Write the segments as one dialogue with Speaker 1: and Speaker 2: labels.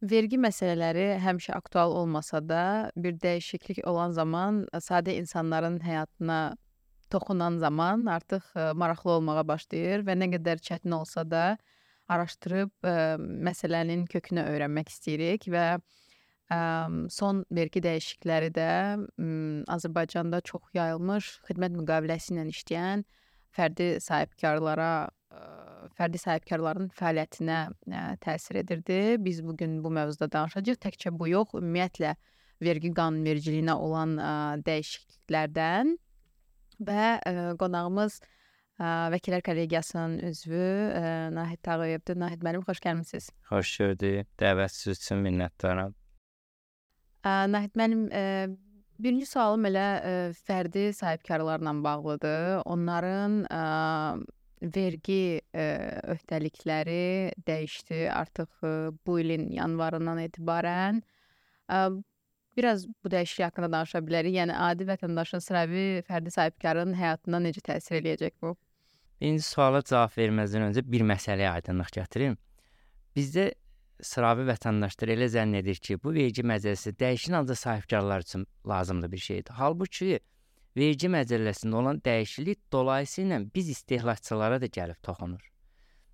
Speaker 1: Vergi məsələləri həmişə aktual olmasa da, bir dəyişiklik olan zaman, sadə insanların həyatına toxunan zaman artıq maraqlı olmağa başlayır və nə qədər çətin olsa da araşdırıb məsələnin kökünü öyrənmək istəyirik və son vergi dəyişiklikləri də Azərbaycanda çox yayılmış xidmət müqaviləsi ilə işləyən fərdi sahibkarlara fərdi sahibkarların fəaliyyətinə təsir edirdi. Biz bu gün bu mövzuda danışacağıq. Təkcə bu yox, ümumiyyətlə vergi qanunvericiliyinə olan dəyişikliklərdən və qonağımız Vəkillər Kollegiyasının üzvü Nahid Tağıyevdir. Nahid müəllim, xoş gəlmisiniz.
Speaker 2: Xoş gördük. Dəvətiniz üçün minnətdaram.
Speaker 1: Nahid müəllim, birinci sualım elə fərdi sahibkarlarla bağlıdır. Onların vergi öhdəlikləri dəyişdi artıq bu ilin yanvarından etibarən. Biraz bu dəyişiklik haqqında danışa bilərik. Yəni adi vətəndaşın, sıravi fərdi sahibkarın həyatına necə təsir eləyəcək bu?
Speaker 2: Birinci suala cavab verməzdən öncə bir məsələyə aydınlıq gətirim. Bizdə sıravi vətəndaşlar elə zənn edir ki, bu vergi məcəlləsi dəyişən ancaq sahibkarlar üçün lazımlı bir şeydir. Halbuki vergi məcəlləsində olan dəyişiklik dolayısıyla biz istehlakçılara da gəlib toxunur.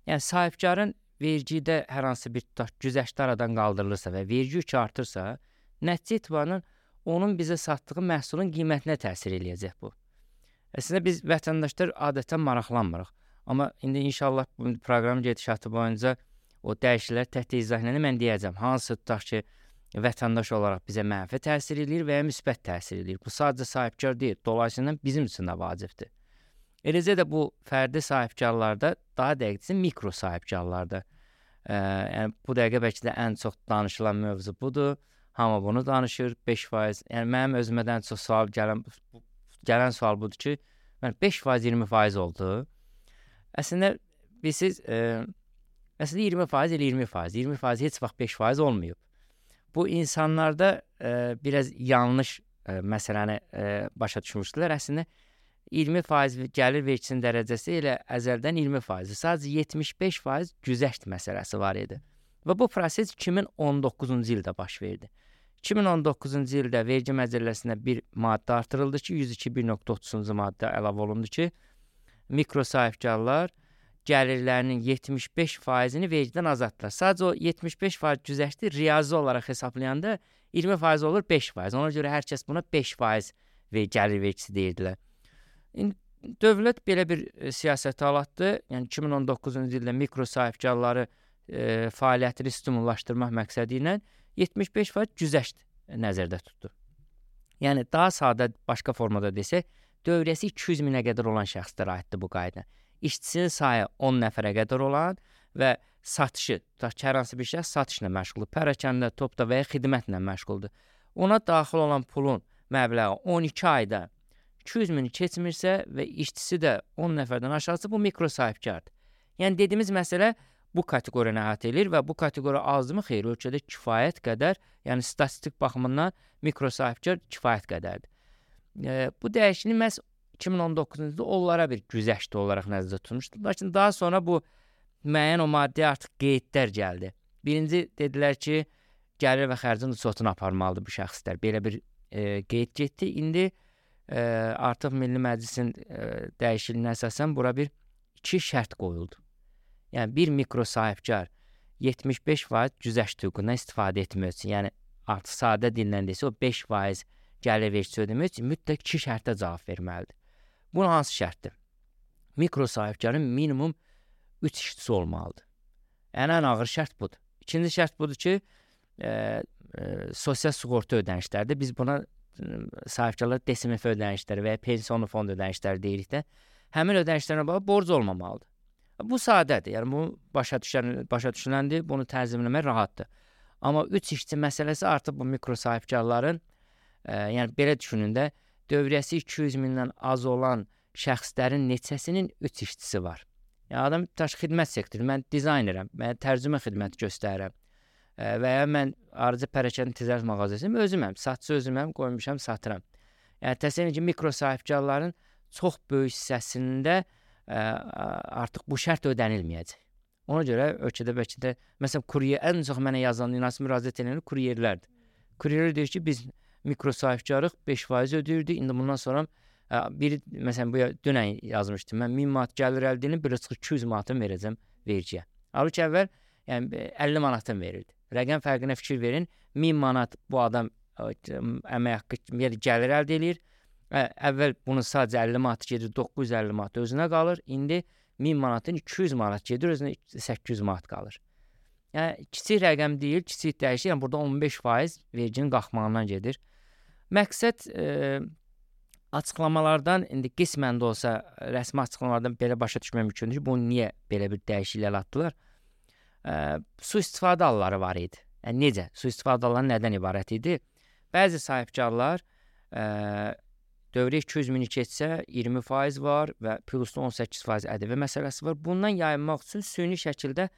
Speaker 2: Yəni sahibkarın vergidə hər hansı bir güzəştli aradan qaldırılırsa və vergi yükü artırsa, nəticə etibarən onun bizə satdığı məhsulun qiymətinə təsir eləyəcək bu. Əslində biz vətəndaşlar adətən maraqlanmırıq. Amma indi inşallah bu proqram gedişatı boyunca o dəyişikliklər təhت izahlarını mən deyəcəm. Hansı tutaq ki, vətəndaş olaraq bizə mənfi təsir eləyir və ya müsbət təsir eləyir. Bu sadəcə sahibkar deyil, dolayısıyla bizim üçün də vacibdir. Eləcə də bu fərdi sahibkarlarda, daha dəqiqcə mikro sahibkarlarda. Yəni bu dəqiqə bəlkə də ən çox danışılan mövzu budur. Hamı bunu danışır, 5%. Yəni mənim özümdən çox sual gələn sual budur ki, 5% 20% oldu. Əslində bilirsiniz, əslində 20% elə 20%, 20% heç vaxt 5% olmayıb. Bu insanlarda biraz yanlış məsələni başa düşmüşdülər. Əslində 20% gəlir vergisinin dərəcəsi elə əzəldən 20%. Sadəcə 75% güzəşt məsələsi var idi. Və bu proses 2019-cu ildə baş verdi. 2019-cu ildə vergi məcəlləsinə bir maddə artırıldı ki, 102.1.30-cu maddə əlavə olundu ki, mikro sahibkarlar gəlirlərinin 75%-ni vergidən azaddılar. Sadəcə o 75% güzəşti riyazi olaraq hesablayanda 20% olur 5%. Ona görə hər kəs buna 5% gəlir vergisi deyirdilər. Dövlət belə bir siyasət alatdı. Yəni 2019-cu ildə mikro sahibkarları fəaliyyətini stimullaşdırmaq məqsədi ilə 75% güzəşt nəzərdə tutdu. Yəni daha sadə başqa formada desək, dövrəsi 200 minə qədər olan şəxslərə aiddir bu qayda. İşçisinin sayı 10 nəfərə qədər olan və satışı, hər hansı bir şəxs satışla məşğuldur, pərakəndə, topda və ya xidmətlə məşğuldur. Ona daxil olan pulun məbləği 12 ayda 200 mini keçmirsə və işçisi də 10 nəfərdən aşağısı, bu mikro sahibkardır. Yəni dediyimiz məsələ bu kateqoriyaya əhatə edilir və bu kateqoriya azmı xeyr, ölkədə kifayət qədər, yəni statistik baxımından mikro sahibkar kifayət qədərdir. Bu dəyişiklik məhz 2019-cu ildə onlara bir güzəşti olaraq nəzərdə tutulmuşdu. Lakin daha sonra bu müəyyən o maddəyə artıq qeydlər gəldi. Birinci dedilər ki, gəlir və xərcin uçotunu aparmalıdır bu şəxslər. Belə bir qeyd getdi. İndi artıq Milli Məclisin dəyişikliyinə əsasən bura bir 2 şərt qoyuldu. Yəni bir mikro sahibkar 75% güzəşt hüququndan istifadə etmək üçün, yəni artıq sadə dillə desə o 5% gəlir vergisi ödəmək üçün mütləq 2 şərtə cavab verməlidir. Bu hansı şərtdir? Mikro sahibkarın minimum 3 işçisi olmalıdır. Yəni ən ağır şərt budur. İkinci şərt budur ki, sosial sığorta ödənişlərdir. Biz buna sahibkarlar DSMF ödənişləri və ya pensiyon fond ödənişləri deyirik də, həmin ödənişlərlə bağlı borc olmamalıdır. Bu sadədir. Yəni bu başa düşüləndir, bunu tənzimləmək rahatdır. Amma 3 işçi məsələsi artıq bu mikro sahibkarların, yəni belə düşünün də, dövriyyəsi 200 mindən az olan şəxslərin neçəsinin 3 işçisi var. Yəni adam xidmət sektoru, mən dizaynerəm, mən tərcümə xidməti göstərirəm və ya mən arıcı pərakəndə ticarət mağazasıyım, özüməm, satıcı özüməm, qoymuşam, satıram. Yəni təsəvvür edin ki, mikro sahibkarların çox böyük hissəsində artıq bu şərt ödənilməyəcək. Ona görə ölkədə bəlkə də məsələn kuryer ən çox mənə yazan inansı müraciət edənlər kuryerlərdir. Kuryerlər deyir ki, biz mikro sahibkarlıq 5% ödəyirdik. İndi bundan sonra biri məsələn bu dünən yazmışdım. Mən 1000 manat gəlir əldə edib, belə çıxır 200 manatını verəcəm vergiyə. Halbuki əvvəl yəni 50 manatını verirdi. Rəqəm fərqinə fikir verin. 1000 manat bu adam əmək haqqı yəni gəlir əldə edir. Əvvəl bunun sadəcə 50 manat gedir, 950 manat özünə qalır. İndi 1000 manatın 200 manat gedir, özünə 800 manat qalır. Yəni kiçik rəqəm deyil, kiçik dəyişir. Yəni burada 15% verginin qalxmağından gedir. Məqsəd açıqlamalardan indi qismən də olsa rəsmi açıqlamalardan belə başa düşmək mümkündür ki, bunu niyə belə bir dəyişiklik atdılar? Sui-istifadə halları var idi. Yəni necə? Sui-istifadə halları nədən ibarət idi? Bəzi sahibkarlar dövrə 200 mini keçsə 20% var və plusda 18% ƏDV məsələsi var. Bundan yayınmaq üçün süni şəkildə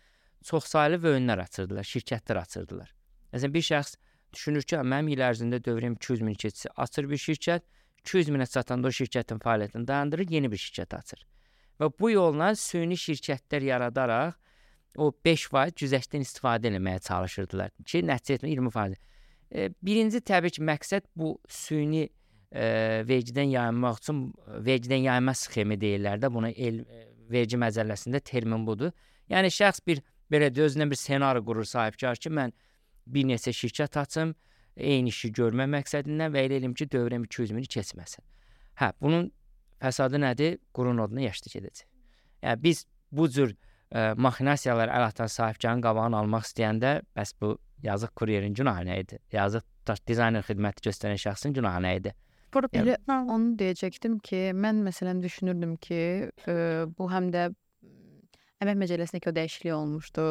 Speaker 2: çoxsaylı vəünlər açırdılar, şirkətlər açırdılar. Məsələn, bir şəxs düşünür ki, mənim il ərzində dövrəm 200 mini keçsə, açır bir şirkət, 200 minə çatanda o şirkətin fəaliyyətini dayandırır, yeni bir şirkət açır. Və bu yolla süni şirkətlər yaradaraq o 5% güzəştdən istifadə etməyə çalışırdılar ki, nəticə etmə 20%. Birinci təbii ki, məqsəd bu süni vergidən yayınmaq üçün vergidən yayınma sxemi deyirlər də, buna vergi məcəlləsində termin budur. Yəni şəxs bir belə özünə bir ssenari qurur sahibkar ki, mən bir neçə şirkət açım, eyni işi görmə məqsədindən və elə eləyim ki, dövrəm 200 mini keçməsin. Bunun fəsadı nədir? Qurun oduna yaşlı gedəcək. Yəni biz bu cür maxinasiyalar əl atan sahibkarın qabağını almaq istəyəndə, bəs bu yazıq kuryerin günahı nə idi? Yazıq dizayner xidməti göstərən şəxsin günahı nə idi?
Speaker 1: Elə onu deyəcəkdim ki, mən məsələn düşünürdüm ki, bu həm də əmək məcəlləsindəki o dəyişiklik olmuşdu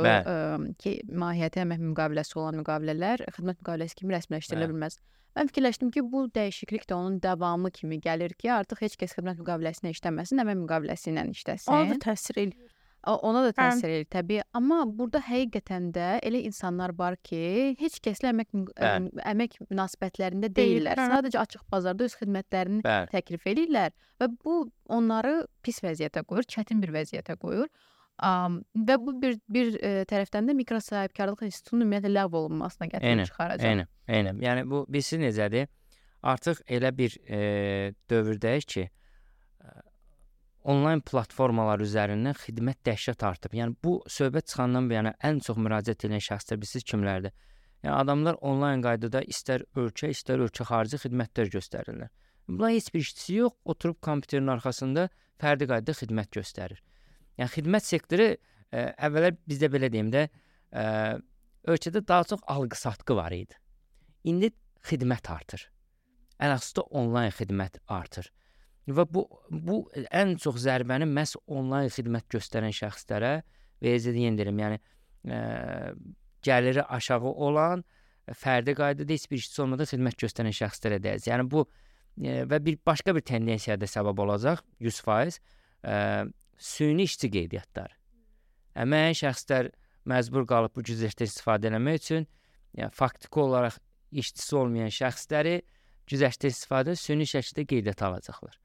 Speaker 1: ki, mahiyyəti əmək müqaviləsi olan müqavilələr xidmət müqaviləsi kimi rəsmiləşdirilə bilməz. Mən fikirləşdim ki, bu dəyişiklik də onun davamı kimi gəlir ki, artıq heç kəs xidmət müqaviləsinə işləməsin, əmək müqaviləsi ilə işləsin.
Speaker 3: Ona da təsir eləyir.
Speaker 1: Ona da təsir edir təbii, amma burada həqiqətən də elə insanlar var ki, heç kəslə əmək münasibətlərində deyirlər. Sadəcə açıq bazarda öz xidmətlərini təklif edirlər və bu onları pis vəziyyətə qoyur, çətin bir vəziyyətə qoyur. Və bu bir tərəfdən də mikro sahibkarlıq institutunun ümumiyyətlə ləğv olunmasına gətirib çıxaracaq.
Speaker 2: Eynən. Yəni bu bilsin necədir? Artıq elə bir dövrdəyik ki, onlayn platformalar üzərindən xidmət dəhşət artıb. Yəni bu söhbət çıxandan bəri ən çox müraciət edən şəxslər bilirsiniz kimlərdir? Yəni adamlar onlayn qaydada istər ölkə xarici xidmətlər göstərirlər. Bunlar heç bir işçisi yox, oturub kompüterin arxasında fərdi qaydada xidmət göstərir. Yəni xidmət sektoru əvvəllər bizdə belə deyim də, ölkədə daha çox alqı-satqı var idi. İndi xidmət artır. Əlhəssdə onlayn xidmət artır. Və bu ən çox zərbəni məhz onlayn xidmət göstərən şəxslərə yendirim. Yəni gəliri aşağı olan, fərdi qaydada heç bir işçisi olmadan xidmət göstərən şəxslərə dəyəcək. Yəni bu və başqa bir tendensiyaya da səbəb olacaq 100%. Süni işçi qeydiyyatları. Əməyən şəxslər məcbur qalıb bu güzəştdən istifadə etmək üçün, yəni faktiki olaraq işçisi olmayan şəxsləri güzəştdən istifadə süni şəkildə qeydiyyata alacaqlar.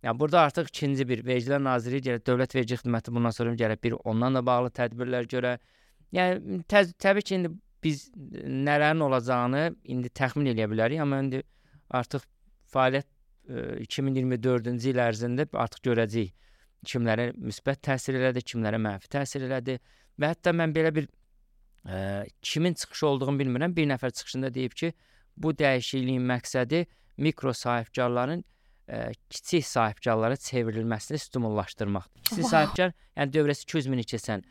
Speaker 2: Yəni burada artıq ikinci bir Vergilər Nazirliyi gəlir, Dövlət Vergi Xidməti bundan sonra gəlir bir ondan da bağlı tədbirlər görə. Yəni təbii ki, indi biz nələrin olacağını indi təxmin edə bilərik, amma indi artıq fəaliyyət 2024-cü il ərzində artıq görəcəyik kimlərə müsbət təsir elədi, kimlərə mənfi təsir elədi və hətta mən belə bir kimin çıxışı olduğunu bilmirəm, bir nəfər çıxışında deyib ki, bu dəyişikliyin məqsədi mikro sahibkarların kiçik sahibkarlara çevrilməsini stimullaşdırmaqdır. Kiçik sahibkar, yəni dövrəsi 200 mini keçən,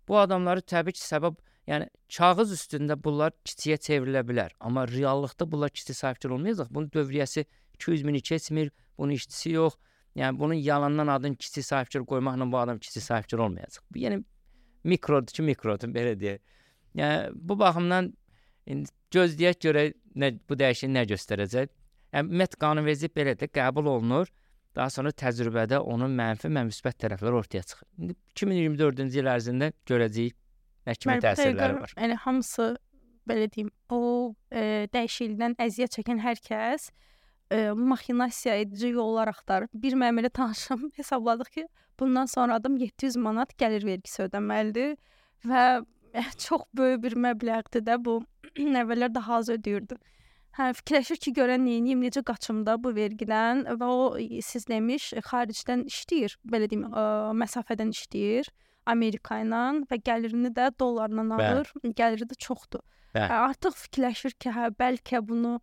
Speaker 2: bu adamları təbii ki, səbəb, yəni kağız üstündə bunlar kiçiyə çevrilə bilər, amma reallıqda bunlar kiçik sahibkar olmayacaq. Bunun dövriyyəsi 200 mini keçmir, bunun işçisi yox, yəni bunun yalandan adını kiçik sahibkar qoymaqla bu adam kiçik sahibkar olmayacaq. Bu, yəni mikrodur ki, mikrodur, belə deyək. Yəni bu baxımdan gözləyək görək bu dəyişiklik nə göstərəcək. Ümumiyyətlə qanunvericilik belə də qəbul olunur. Daha sonra təcrübədə onun mənfi və müsbət tərəfləri ortaya çıxır. İndi 2024-cü il ərzində görəcəyik nə kimi təsirləri var.
Speaker 3: Yəni hamısı belə deyim, o dəyişiklikdən əziyyət çəkən hər kəs maxinasiya edici yollar axtarır. Bir məmurla tanışım hesabladıq ki, bundan sonra adam 700 manat gəlir vergisi ödəməlidir və çox böyük bir məbləğdir də bu. Əvvəllər daha az ödəyirdi. Hə, fikirləşir ki, görən neyniyim, necə qaçım da bu vergidən və o siz demiş xaricdən işləyir, belə deyim, məsafədən işləyir Amerika ilə və gəlirini də dollarla alır. Gəliri də çoxdur. Artıq fikirləşir ki, hə, bəlkə bunu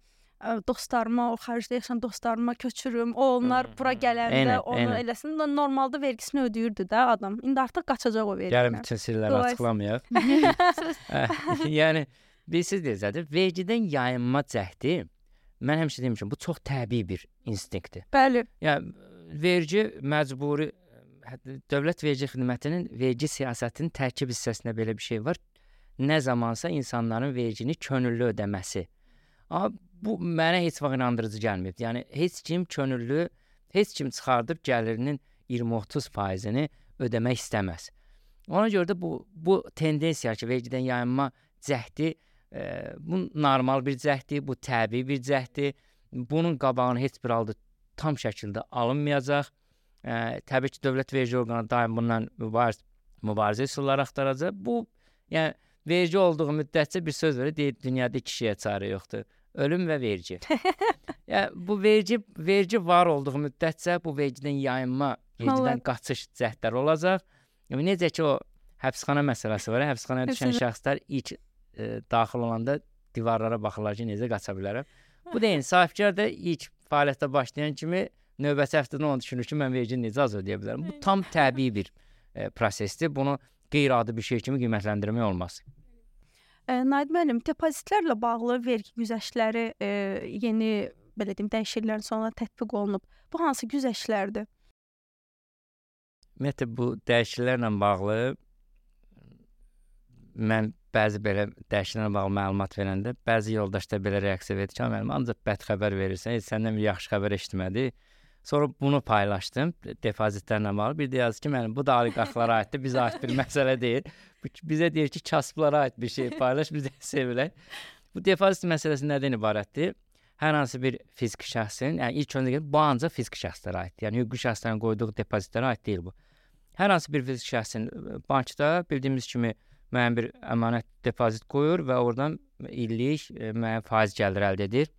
Speaker 3: dostlarıma, o xaricdə yaşayan dostlarıma köçürüm. Onlar bura gələndə onu eləsin. Normalda vergisini ödəyirdi də adam. İndi artıq qaçacaq o vergidən.
Speaker 2: Gəlin bütün sirləri açıqlamayaq. Yəni bilirsiniz nədir? Vergidən yayınma cəhdi, mən həmişə demişəm, bu çox təbii bir instinktdir.
Speaker 3: Bəli.
Speaker 2: Yəni vergi məcburi, dövlət vergi xidmətinin vergi siyasətinin tərkib hissəsində belə bir şey var. Nə zamansa insanların vergini könüllü ödəməsi. Amma bu mənə heç vaxt inandırıcı gəlmir. Yəni heç kim könüllü, heç kim çıxardıb gəlirinin 20-30%-ni ödəmək istəməz. Ona görə də bu tendensiya ki, vergidən yayınma cəhdi bu normal bir cəhdi, bu təbii bir cəhdi. Bunun qabağını heç bir halda tam şəkildə alınmayacaq. Təbii ki, dövlət vergi orqanı daim bundan mübarizə üsulları axtaracaq. Bu, yəni vergi olduğu müddətcə bir söz verir, deyir, dünyada iki şeyə çarə yoxdur. Ölüm və vergi. Yəni bu vergi var olduğu müddətcə bu vergidən yayınma, vergidən qaçış cəhdləri olacaq. Yəni necə ki o həbsxana məsələsi var, həbsxanaya düşən şəxslər ilk daxil olanda divarlara baxırlar ki, necə qaça bilərəm. Bu da sahibkar da ilk fəaliyyətə başlayan kimi növbəti həftədə onu düşünür ki, mən vergini necə az ödəyə bilərəm. Bu tam təbii bir prosesdir. Bunu qeyri-adi bir şey kimi qiymətləndirmək olmaz.
Speaker 3: Naid müəllim, depozitlərlə bağlı vergi güzəştləri yeni, belə deyim, dəyişikliklərin sonra tətbiq olunub. Bu hansı güzəştlərdir?
Speaker 2: Ümumiyyətlə, bu dəyişikliklərlə bağlı mən bəzi belə dəyişikliklərlə bağlı məlumat verəndə bəzi yoldaşlar belə reaksiya verdi ki, müəllim, ancaq bəd xəbər verirsən, heç səndən bir yaxşı xəbər eşitmədi. Sonra bunu paylaşdım depozitlərlə bağlı. Bir də yazdı ki, müəllim, bu da oliqarxlara aiddir, bizə aid bir məsələ deyil. Bizə deyir ki, kasıblara aid bir şey paylaş, biz də sevilək. Bu depozit məsələsi nədən ibarətdir? Hər hansı bir fiziki şəxsin, yəni ilk öncə bu ancaq fiziki şəxslərə aiddir. Yəni hüquqi şəxslərin qoyduğu depozitlərə aid deyil bu. Hər hansı bir fiziki şəxsin bankda bildiyimiz kimi müəyyən bir əmanət depozit qoyur və oradan illik müəyyən faiz gəliri əldə edir.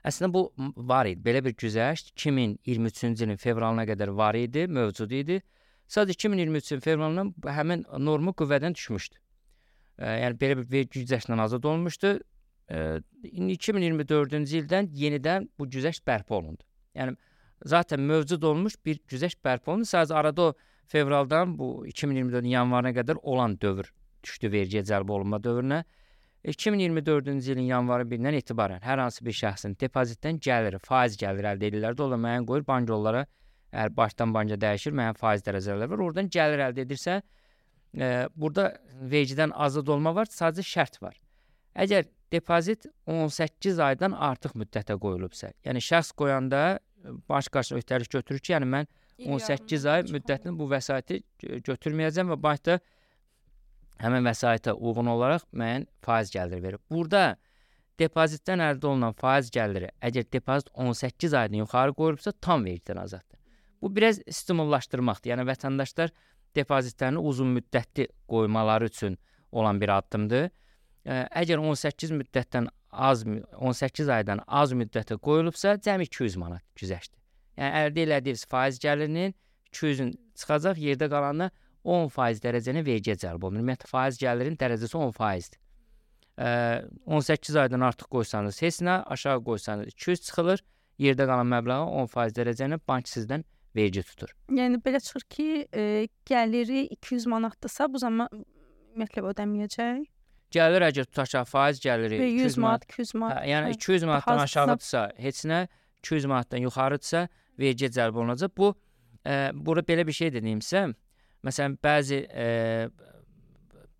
Speaker 2: Əslində bu var idi. Belə bir güzəşt 2023-cü ilin fevralına qədər var idi, mövcud idi. Sadəcə 2023-cü fevralından həmin norma qüvvədən düşmüşdü. Yəni belə bir vergi güzəştindən azad olmuşdu. 2024-cü ildən yenidən bu güzəşt bərpa olundu. Yəni zaten mövcud olmuş bir güzəşt bərpa olundu. Sadəcə arada o fevraldan bu 2024-cü yanvarına qədər olan dövr düşdü vergiyə cəlb olunma dövrünə. 2024-cü ilin yanvarı 1-dən etibarən hər hansı bir şəxsin depozitdən gəliri, faiz gəliri əldə edirlər. Dolayı müəyyən qoyur, bank onlara əgər başdan banka dəyişir, müəyyən faiz dərəcələri var. Oradan gəlir əldə edirsə, burada vergidən azad olma var, sadəcə şərt var. Əgər depozit 18 aydan artıq müddətə qoyulubsa, yəni şəxs qoyanda baş qarşısına öhdəlik götürür ki, yəni mən 18 ay müddətini bu vəsaiti götürməyəcəm və bankda həmin vəsaitə uyğun olaraq müəyyən faiz gəliri verir. Burada depozitdən əldə olunan faiz gəliri, əgər depozit 18 aydan yuxarı qoyulubsa, tam vergidən azaddır. Bu biraz stimullaşdırmaqdır. Yəni vətəndaşlar depozitlərini uzun müddətli qoymaları üçün olan bir addımdır. Əgər 18 aydan az müddətə qoyulubsa, cəmi 200 manat güzəştdir. Yəni əldə elədiyiniz faiz gəlirinin 200-ün çıxacaq, yerdə qalanına 10% dərəcəni vergiyə cəlb olunur. Ümumiyyətlə faiz gəlirinin dərəcəsi 10%-dir. 18 aydan artıq qoysanız heç nə, aşağı qoysanız 200 çıxılır, yerdə qalan məbləğə 10% dərəcəni bank sizdən vergi tutur.
Speaker 3: Yəni belə çıxır ki, gəliri 200 manatdırsa, bu zaman ümumiyyətlə ödəməyəcək.
Speaker 2: Gəlir əgər tutaq ki, faiz gəliri
Speaker 3: 200 manat, 200 manat.
Speaker 2: Yəni 200 manatdan aşağıdırsa heç nə, 200 manatdan yuxarıdırsa vergiyə cəlb olunacaq. Bu burada belə bir şey dediyimsə, məsələn bəzi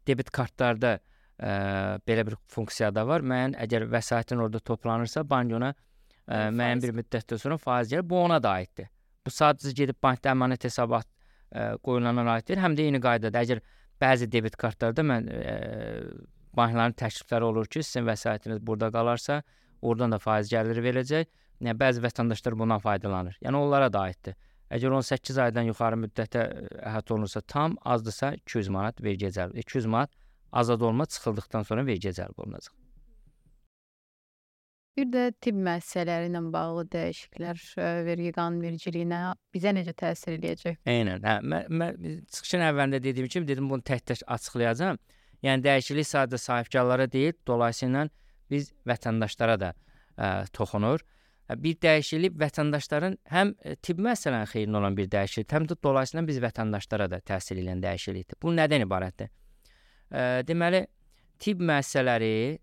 Speaker 2: debit kartlarda belə bir funksiya da var. Müəyyən əgər vəsaitin orada toplanırsa, bank ona müəyyən bir müddətdən sonra faiz gəlir. Bu ona da aiddir. Bu sadəcə gedib bankda əmanət hesabat qoyulana aiddir. Həm də eyni qaydada əgər bəzi debit kartlarda bankların təklifləri olur ki, sizin vəsaitiniz burada qalarsa, oradan da faiz gəliri verəcək. Yəni bəzi vətəndaşlar bundan faydalanır. Yəni onlara da aiddir. Əgər 18 aydan yuxarı müddətə əhatə olunursa tam, azdırsa 200 manat vergiyə cəlb. 200 manat azad olma çıxıldıqdan sonra vergiyə cəlb olunacaq.
Speaker 1: Bir də tibb müəssisələri ilə bağlı dəyişikliklər vergi qanunvericiliyinə bizə necə təsir eləyəcək?
Speaker 2: Eynən. Mən çıxışın əvvəlində dediyim kimi dedim bunu tək-tək açıqlayacağam. Yəni dəyişiklik sadə sahibkarlara deyil, dolayısıyla biz vətəndaşlara da toxunur. Bir dəyişiklik vətəndaşların həm tibb müəssisələrinin xeyrinə olan bir dəyişiklik, həm də dolayısıyla biz vətəndaşlara da təsir edən dəyişiklikdir. Bu nədən ibarətdir? Deməli, tibb müəssisələri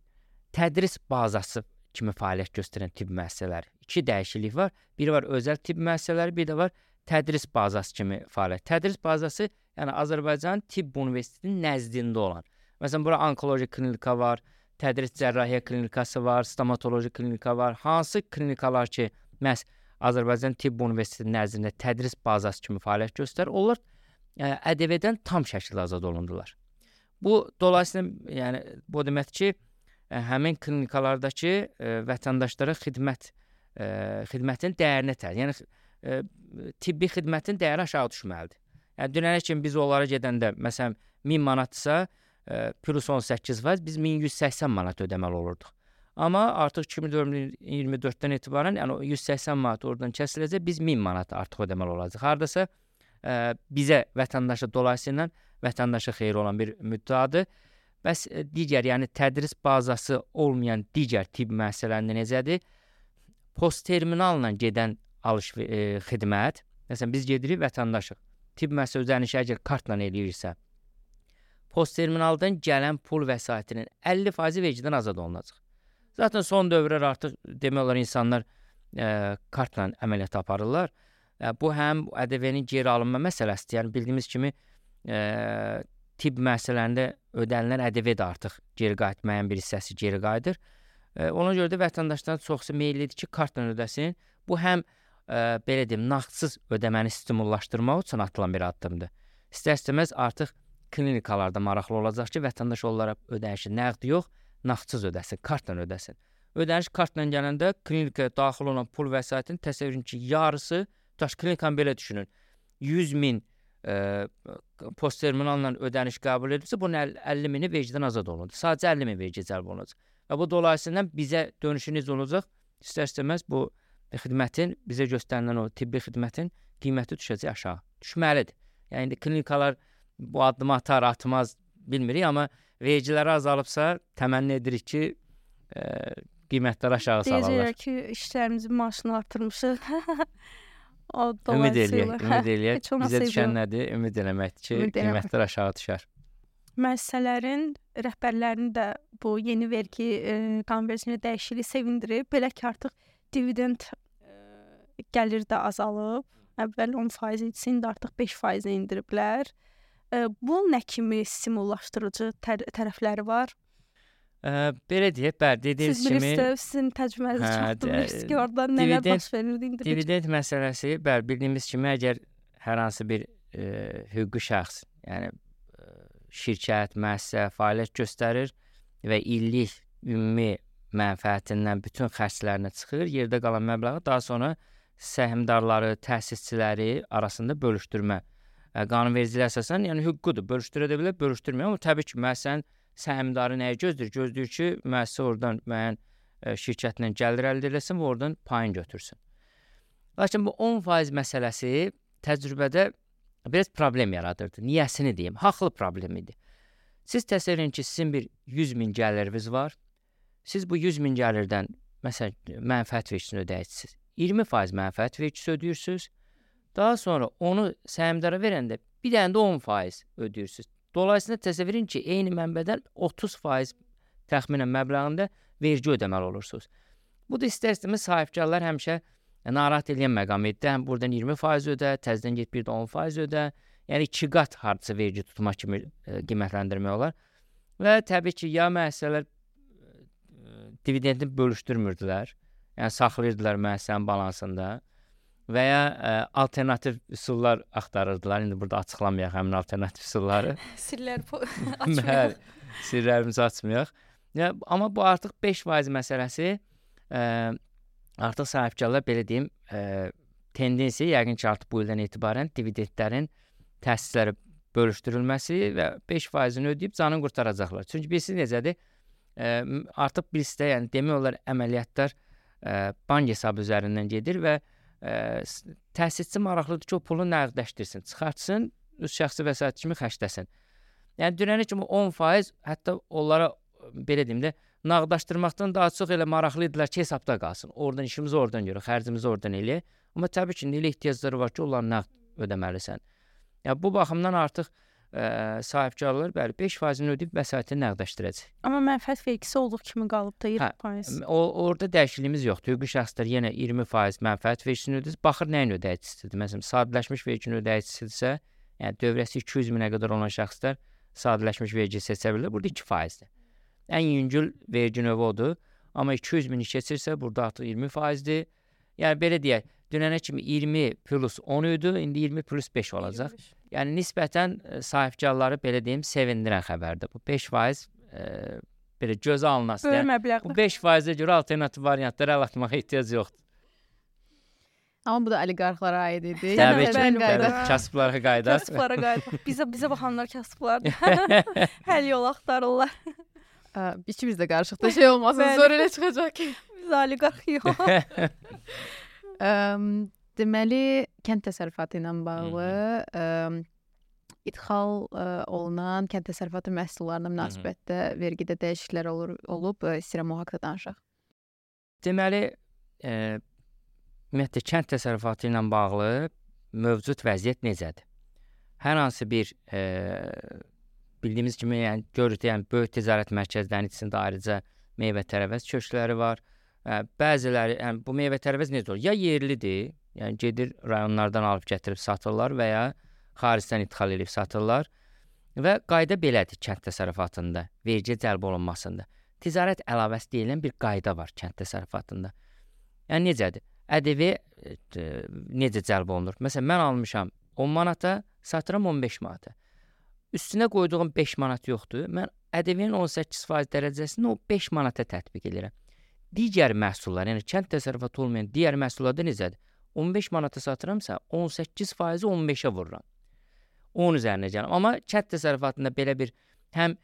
Speaker 2: tədris bazası kimi fəaliyyət göstərən tibb müəssisələri. İki dəyişiklik var. Biri var özəl tibb müəssisələri, bir də var tədris bazası kimi fəaliyyət. Tədris bazası, yəni Azərbaycan Tibb Universitetinin nəzdində olan. Məsələn, bura onkoloji klinika var, tədris cərrahiyyə klinikası var, stomatoloji klinika var. Hansı klinikalar ki, məhz Azərbaycan Tibb Universitetinin nəzdində tədris bazası kimi fəaliyyət göstərir, onlar ƏDV-dən tam şəkildə azad olundular. Bu dolayısıyla, yəni bu deməkdir ki, həmin klinikalardakı vətəndaşlara xidmətin dəyərini təyin. Yəni tibbi xidmətin dəyəri aşağı düşməlidir. Yəni dünənə kimi biz onlara gedəndə məsələn 1000 manatsa plus 18% biz 1180 manat ödəməli olurduq. Amma artıq 2024-dən etibarən yəni 180 manat oradan kəsiləcək, biz 1000 manat artıq ödəməli olacaq. Hardasa bizə vətəndaşa dolayısıyla vətəndaşa xeyri olan bir müddəadır. Bəs digər, yəni tədris bazası olmayan digər tibb müəssisələrində necədir? Postterminalla gedən xidmət, məsələn biz gedirik vətəndaşıq. Tibb müəssisə ödənişi əgər kartla eləyirsə, postterminaldan gələn pul vəsaitinin 50% vergidən azad olunacaq. Zaten son dövrlər artıq demək olar insanlar kartla əməliyyat aparırlar. Bu həm ƏDV-nin geri alınma məsələsidir. Yəni bildiyimiz kimi tibb müəssisələrində ödənilən ƏDV də artıq geri qayıtmayan bir hissəsi geri qayıdır. Ona görə də vətəndaşların çoxsu meyillidir ki, kartla ödəsin. Bu həm belə deyim, nağdsız ödəməni stimullaşdırmaq üçün atılan bir addımdır. İstər-istəməz artıq klinikalarda maraqlı olacaq ki, vətəndaş onlara ödənişi nəqd yox, nağdsız ödəsin, kartla ödəsin. Ödəniş kartla gələndə klinikaya daxil olan pul vəsaitinin təsəvvürün ki, yarısı, klinikanı belə düşünün, 100.000 postterminalla ödəniş qəbul edilsə, bunun 50.000-i vergidən azad olunur. Sadəcə 50.000 vergi cəlb olunacaq. Və bu dolayısıyla bizə dönüşü necə olacaq? İstər-istəməz bu xidmətin, bizə göstərilən o tibbi xidmətin qiyməti düşəcək aşağı. Düşməlidir. Yəni indi klinikalar bu addımı atar, atmaz bilmirik, amma vergiləri azalıbsa təmənni edirik ki, qiymətləri aşağı salırlar.
Speaker 3: Deyəcəklər ki, işlərimizin maaşını artırmışıq.
Speaker 2: Ümid eləyək. Bizə düşən nədir? Ümid eləməkdir ki, qiymətlər aşağı düşər.
Speaker 3: Müəssisələrin rəhbərlərini də bu yeni vergi qanunvericiliyinə dəyişikliyi sevindirib. Belə ki, artıq dividend gəlir də azalıb. Əvvəl 10% idi, indi artıq 5% indiriblər. Bu nə kimi stimullaşdırıcı tərəfləri var?
Speaker 2: Belə deyək, bəli, dediyiniz kimi...
Speaker 3: Siz bilirsiniz, sizin təcrübənizi çatdırmışsınız ki, orada nələr baş verirdi indi?
Speaker 2: Dividend məsələsi, bəli, bildiyimiz kimi, əgər hər hansı bir hüquqi şəxs, yəni şirkət, müəssisə fəaliyyət göstərir və illik ümumi mənfəətindən bütün xərclərinə çıxır, yerdə qalan məbləği daha sonra səhmdarları, təsisçiləri arasında bölüşdürmə. Qanunvericiliyə əsasən, yəni hüququdur, bölüşdürə də bilər, bölüşdürmür, amma təbii ki, müəssisənin səhmdarı nəyə gözləyir? Gözləyir ki, müəssisə oradan müəyyən şirkətlə gəlir əldə eləsin və oradan payın götürsün. Lakin bu 10% məsələsi təcrübədə biraz problem yaradırdı. Niyəsini deyim, haqlı problem idi. Siz təsəvvür edin ki, sizin bir 100.000 gəliriniz var. Siz bu 100.000 gəlirdən, məsələn, mənfəət vergisini ödəyirsiniz. 20% mənfəət vergisi ödəyirsiniz. Daha sonra onu səhmdara verəndə bir dənə də 10% ödəyirsiniz. Dolayısıyla təsəvvür edin ki, eyni mənbədən 30% təxminən məbləğində vergi ödəməli olursunuz. Bu da istər-istəməz sahibkarlar həmişə narahat edən məqam idi. Həm buradan 20% ödə, təzədən get bir də 10% ödə. Yəni 2 qat hardasa vergi tutma kimi qiymətləndirmək olar. Və təbii ki, ya müəssisələr dividendini bölüşdürmürdülər. Yəni saxlayırdılar müəssisənin balansında. Və ya alternativ üsullar axtarırdılar. İndi burada açıqlamayaq həmin alternativ üsulları.
Speaker 3: Sirlər açmayaq.
Speaker 2: Sirlərimizi açmayaq. Amma bu artıq 5% məsələsi artıq sahibkarlar belə deyim tendensiya yəqin ki, artıq bu ildən etibarən dividendlərin təsisləri bölüşdürülməsi və 5%-ni ödəyib canını qurtaracaqlar. Çünki bilirsiniz necədir? Artıq birisi də, yəni demək olar əməliyyatlar bank hesabı üzərindən gedir və təsisçi maraqlıdır ki, o pulu nəqdləşdirsin, çıxartsın, öz şəxsi vəsait kimi xərcləsin. Yəni dünənə kimi 10%, hətta onlara belə deyim də, nağdlaşdırmaqdan daha çox elə maraqlı idilər ki, hesabda qalsın. Oradan işimizi oradan görək, xərcimizi oradan eləyək. Amma təbii ki, elə ehtiyacları var ki, onları nağd ödəməlisən. Yəni bu baxımdan artıq sahibkarlar bəli 5%-ni ödəyib vəsaiti nəqdləşdirəcək.
Speaker 3: Amma mənfəət vergisi olduğu kimi qalıb da 20%.
Speaker 2: Orada dəyişikliyimiz yoxdur. Hüquqi şəxslər yenə 20% mənfəət vergisini ödəyir. Baxır nəyin ödəyicisidir. Məsələn, sadələşmiş verginin ödəyicisidirsə, yəni dövrəsi 200 minə qədər olan şəxslər sadələşmiş vergi seçə bilər. Burada 2%-dir. Ən yüngül vergi növü odur. Amma 200 mini keçirsə, burada artıq 20%-dir. Yəni belə deyək, dünənə kimi 20 plus 10 idi, indi 20 plus 5 olacaq. Yəni nisbətən sahibkarları belə deyim, sevindirən xəbərdir. Bu 5% belə gözə alınası.
Speaker 3: Böyük məbləğdir.
Speaker 2: Bu 5%-ə görə alternativ variantlara əl atmağa ehtiyac yoxdur.
Speaker 1: Amma bu da oliqarxlara aid idi.
Speaker 2: Təbii ki,
Speaker 1: qayda.
Speaker 2: kasıblara qayda.
Speaker 3: Kasıblara qayda. Bizə baxanlar kasıblardır. Həll yol axtarırlar.
Speaker 1: İkimiz də qarışıqda şey olmasın,
Speaker 3: Bəli.
Speaker 1: zor elə çıxacaq ki.
Speaker 3: Biz oliqarx yox.
Speaker 1: Deməli, kənd təsərrüfatı ilə bağlı idxal olunan kənd təsərrüfatı məhsullarına münasibətdə vergidə dəyişikliklər olub, istəyirəm o haqqda danışaq.
Speaker 2: Deməli, ümumiyyətlə kənd təsərrüfatı ilə bağlı mövcud vəziyyət necədir? Hər hansı bir bildiyimiz kimi, yəni görürük, yəni böyük ticarət mərkəzlərinin içində ayrıca meyvə-tərəvəz köşkləri var. Bəziləri, yəni bu meyvə-tərəvəz necə olur? Ya yerlidir, yəni gedir rayonlardan alıb gətirib satırlar və ya xaricdən idxal edib satırlar. Və qayda belədir kənd təsərrüfatında, vergi cəlb olunmasında. Ticarət əlavəsi deyilən bir qayda var kənd təsərrüfatında. Yəni necədir? ƏDV necə cəlb olunur? Məsələn, mən almışam 10 manata, satıram 15 manata. Üstünə qoyduğum 5 manat yoxdur. Mən ƏDV-nin 18% dərəcəsini o 5 manata tətbiq edirəm. Digər məhsullar, yəni kənd təsərrüfatı olmayan digər məhsullarda necədir? 15 manata satıramsa 18%-i 15-ə vururam. Onun üzərinə gələm. Amma kənd təsərrüfatında belə bir həm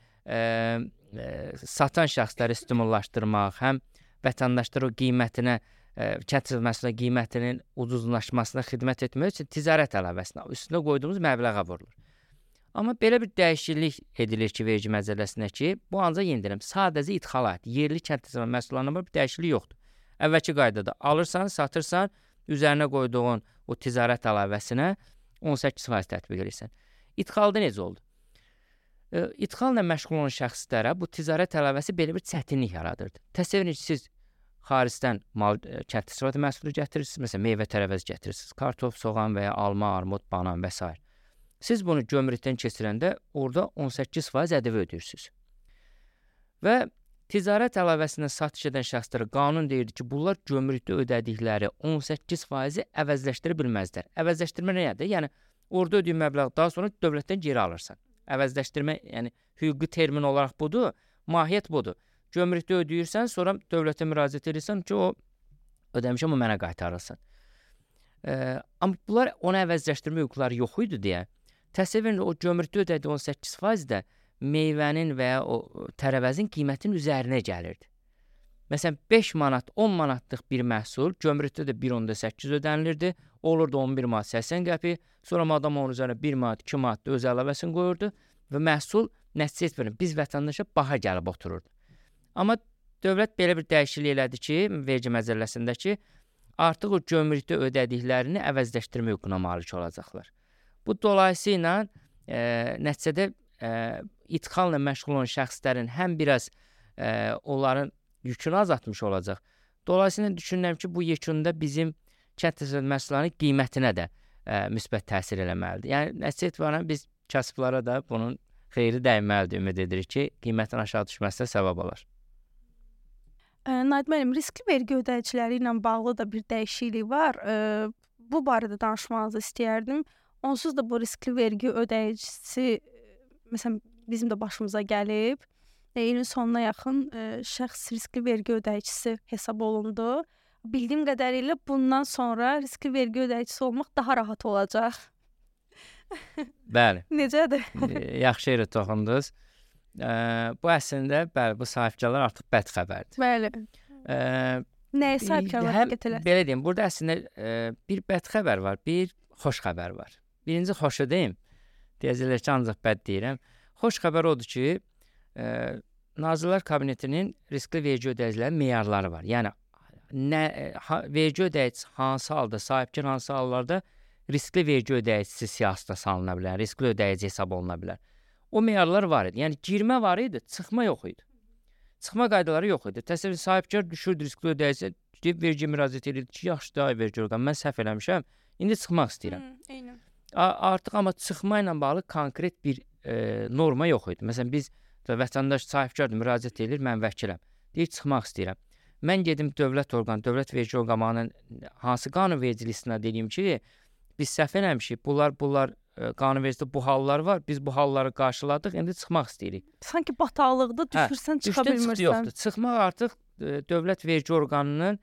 Speaker 2: satan şəxsləri stimullaşdırmaq, həm vətəndaşlara o qiymətinə, kənd təsərrüfatı məhsullarının qiymətinin ucuzlaşmasına xidmət etmək üçün ticarət əlavəsinə üstünə qoyduğumuz məbləğə vurulur. Amma belə bir dəyişiklik edilir ki, vergi məcəlləsində ki, bu ancaq yenilənir. Sadəcə idxala aid, yerli kənd təsərrüfatı məhsullarına bir dəyişiklik yoxdur. Əvvəlki qaydada alırsan, satırsan, üzərinə qoyduğun o ticarət əlavəsinə 18% tətbiq edirsən. İdxalda necə oldu? İdxalla məşğul olan şəxslərə bu ticarət əlavəsi belə bir çətinlik yaradırdı. Təsəvvür edin ki, siz xaricdən kənd təsərrüfatı məhsulu gətirirsiniz, məsələn, meyvə-tərəvəz gətirirsiniz, kartof, soğan və ya alma, armud, banan və s. Siz bunu gömrükdən keçirəndə orada 18% ƏDV ödəyirsiniz. Və ticarət əlavəsindən satış edən şəxslərə qanun deyirdi ki, bunlar gömrükdə ödədikləri 18%-i əvəzləşdirə bilməzlər. Əvəzləşdirmə nədir? Yəni orada ödəyin məbləği daha sonra dövlətdən geri alırsan. Əvəzləşdirmə, yəni hüquqi termin olaraq budur, mahiyyət budur. Gömrükdə ödəyirsən, sonra dövlətə müraciət edirsən ki, o ödəmişəm, o mənə qaytarılsın. Amma bunlar ona əvəzləşdirmə hüquqları yox idi deyə, təsəvvür edin, o gömrükdə ödədiyi 18% də meyvənin və ya o tərəvəzin qiymətinin üzərinə gəlirdi. Məsələn, 5 manat, 10 manatlıq bir məhsul gömrükdə də 1.8 ödənilirdi. Olurdu 11 manat 80 qəpik. Sonra adam onun üzərinə 1 manat, 2 manat da öz əlavəsini qoyurdu və məhsul nəticə etmir. Biz vətəndaşa baha gəlib otururdu. Amma dövlət belə bir dəyişiklik elədi ki, vergi məcəlləsində ki, artıq o gömrükdə ödədiklərini əvəzləşdirmə hüququna malik olacaqlar. Bu dolayısıyla nəticədə idxalla məşğul olan şəxslərin həm biraz onların yükünü azaltmış olacaq. Dolayısıyla düşünürəm ki, bu yekunda bizim kənd təsərrüfatı məhsullarının qiymətinə də müsbət təsir eləməlidir. Yəni nəticə etibarən biz kasıblara da bunun xeyri dəyməlidir, ümid edirik ki, qiymətin aşağı düşməsinə səbəb olar.
Speaker 3: Naid müəllim, riskli vergi ödəyiciləri ilə bağlı da bir dəyişiklik var. Bu barədə danışmanızı istəyərdim. Onsuz da bu riskli vergi ödəyicisi, məsələn, bizim də başımıza gəlib. İlin sonuna yaxın şəxs riskli vergi ödəyicisi hesab olundu. bildiyim qədərilə bundan sonra riskli vergi ödəyicisi olmaq daha rahat olacaq.
Speaker 2: Bəli.
Speaker 3: Necədir?
Speaker 2: Yaxşı yerə toxundunuz. Bu əslində bəli, bu sahibkarlar artıq bəd xəbərdir.
Speaker 3: Bəli. Nəyə sahibkarlar diqqət eləsin?
Speaker 2: Belə deyim, burada əslində bir bəd xəbər var, bir xoş xəbər var. Birinci xoşu deyim. Deyəcəklər ki, ancaq bəd deyirəm. Xoş xəbər odur ki, Nazirlər Kabinetinin riskli vergi ödəyicilərinin meyarları var. Yəni vergi ödəyicisi hansı halda, sahibkar hansı hallarda riskli vergi ödəyicisi siyahısına salına bilər, riskli ödəyici hesab oluna bilər. O meyarlar var idi. Yəni girmə var idi, çıxma yox idi. Çıxma qaydaları yox idi. Təsəvvür sahibkar düşürdü riskli ödəyici, gedib vergi müraciət edirdi ki, yaxşı da vergi orqanı, mən səhv eləmişəm, indi çıxmaq istəyirəm.
Speaker 3: Eynən.
Speaker 2: Artıq amma çıxma ilə bağlı konkret bir norma yox idi. Məsələn, biz vətəndaş sahibkardır, müraciət edir, mən vəkiləm. Deyir, çıxmaq istəyirəm. Mən gedim dövlət orqanı, dövlət vergi orqanının hansı qanunvericilik istinad edeyim ki, biz səhv eləmişik, bunlar qanunvericilikdə bu hallar var, biz bu halları qarşıladıq, indi çıxmaq istəyirik.
Speaker 3: Sanki bataqlıqda düşürsən, çıxa bilmirsən.
Speaker 2: Yoxdur. Çıxmaq artıq dövlət vergi orqanının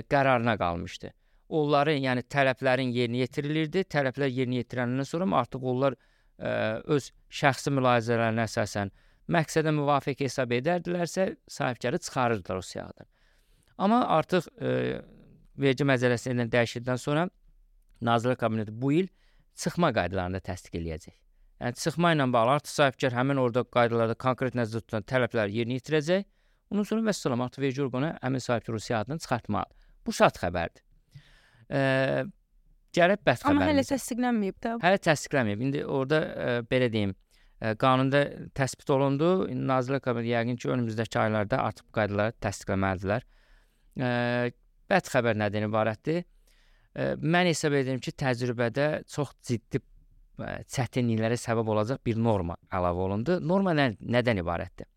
Speaker 2: qərarına qalmışdı. Onların, yəni tələblərin yerinə yetirilirdi. Tələblər yerinə yetiriləndən sonra artıq onlar öz şəxsi mülahizələrinə əsasən məqsədə müvafiq hesab edərdilərsə, sahibkarı çıxarırdılar o siyahıdan. Amma artıq vergi məcəlləsindən dəyişildikdən sonra Nazirlər Kabineti bu il çıxma qaydalarını da təsdiq eləyəcək. Yəni çıxma ilə bağlı artıq sahibkar həmin orada qaydalarda konkret nəzərdə tutulan tələbləri yerinə yetirəcək. Ondan sonra vəssalam artıq vergi orqanı həmin sahibkar o siyahıdan çıxartmalıdır. Bu şad xəbərdir. Gərək bəd xəbərimiz.
Speaker 3: Amma hələ təsdiqlənməyib də.
Speaker 2: Hələ təsdiqlənməyib. İndi orada belə deyim, qanunda təsbit olundu. Nazirlər Kabineti yəqin ki, önümüzdəki aylarda artıq bu qaydaları təsdiqləməlidirlər. Bəd xəbər nədən ibarətdir? Mən hesab edirəm ki, təcrübədə çox ciddi çətinliklərə səbəb olacaq bir norma əlavə olundu. Norma nədən ibarətdir?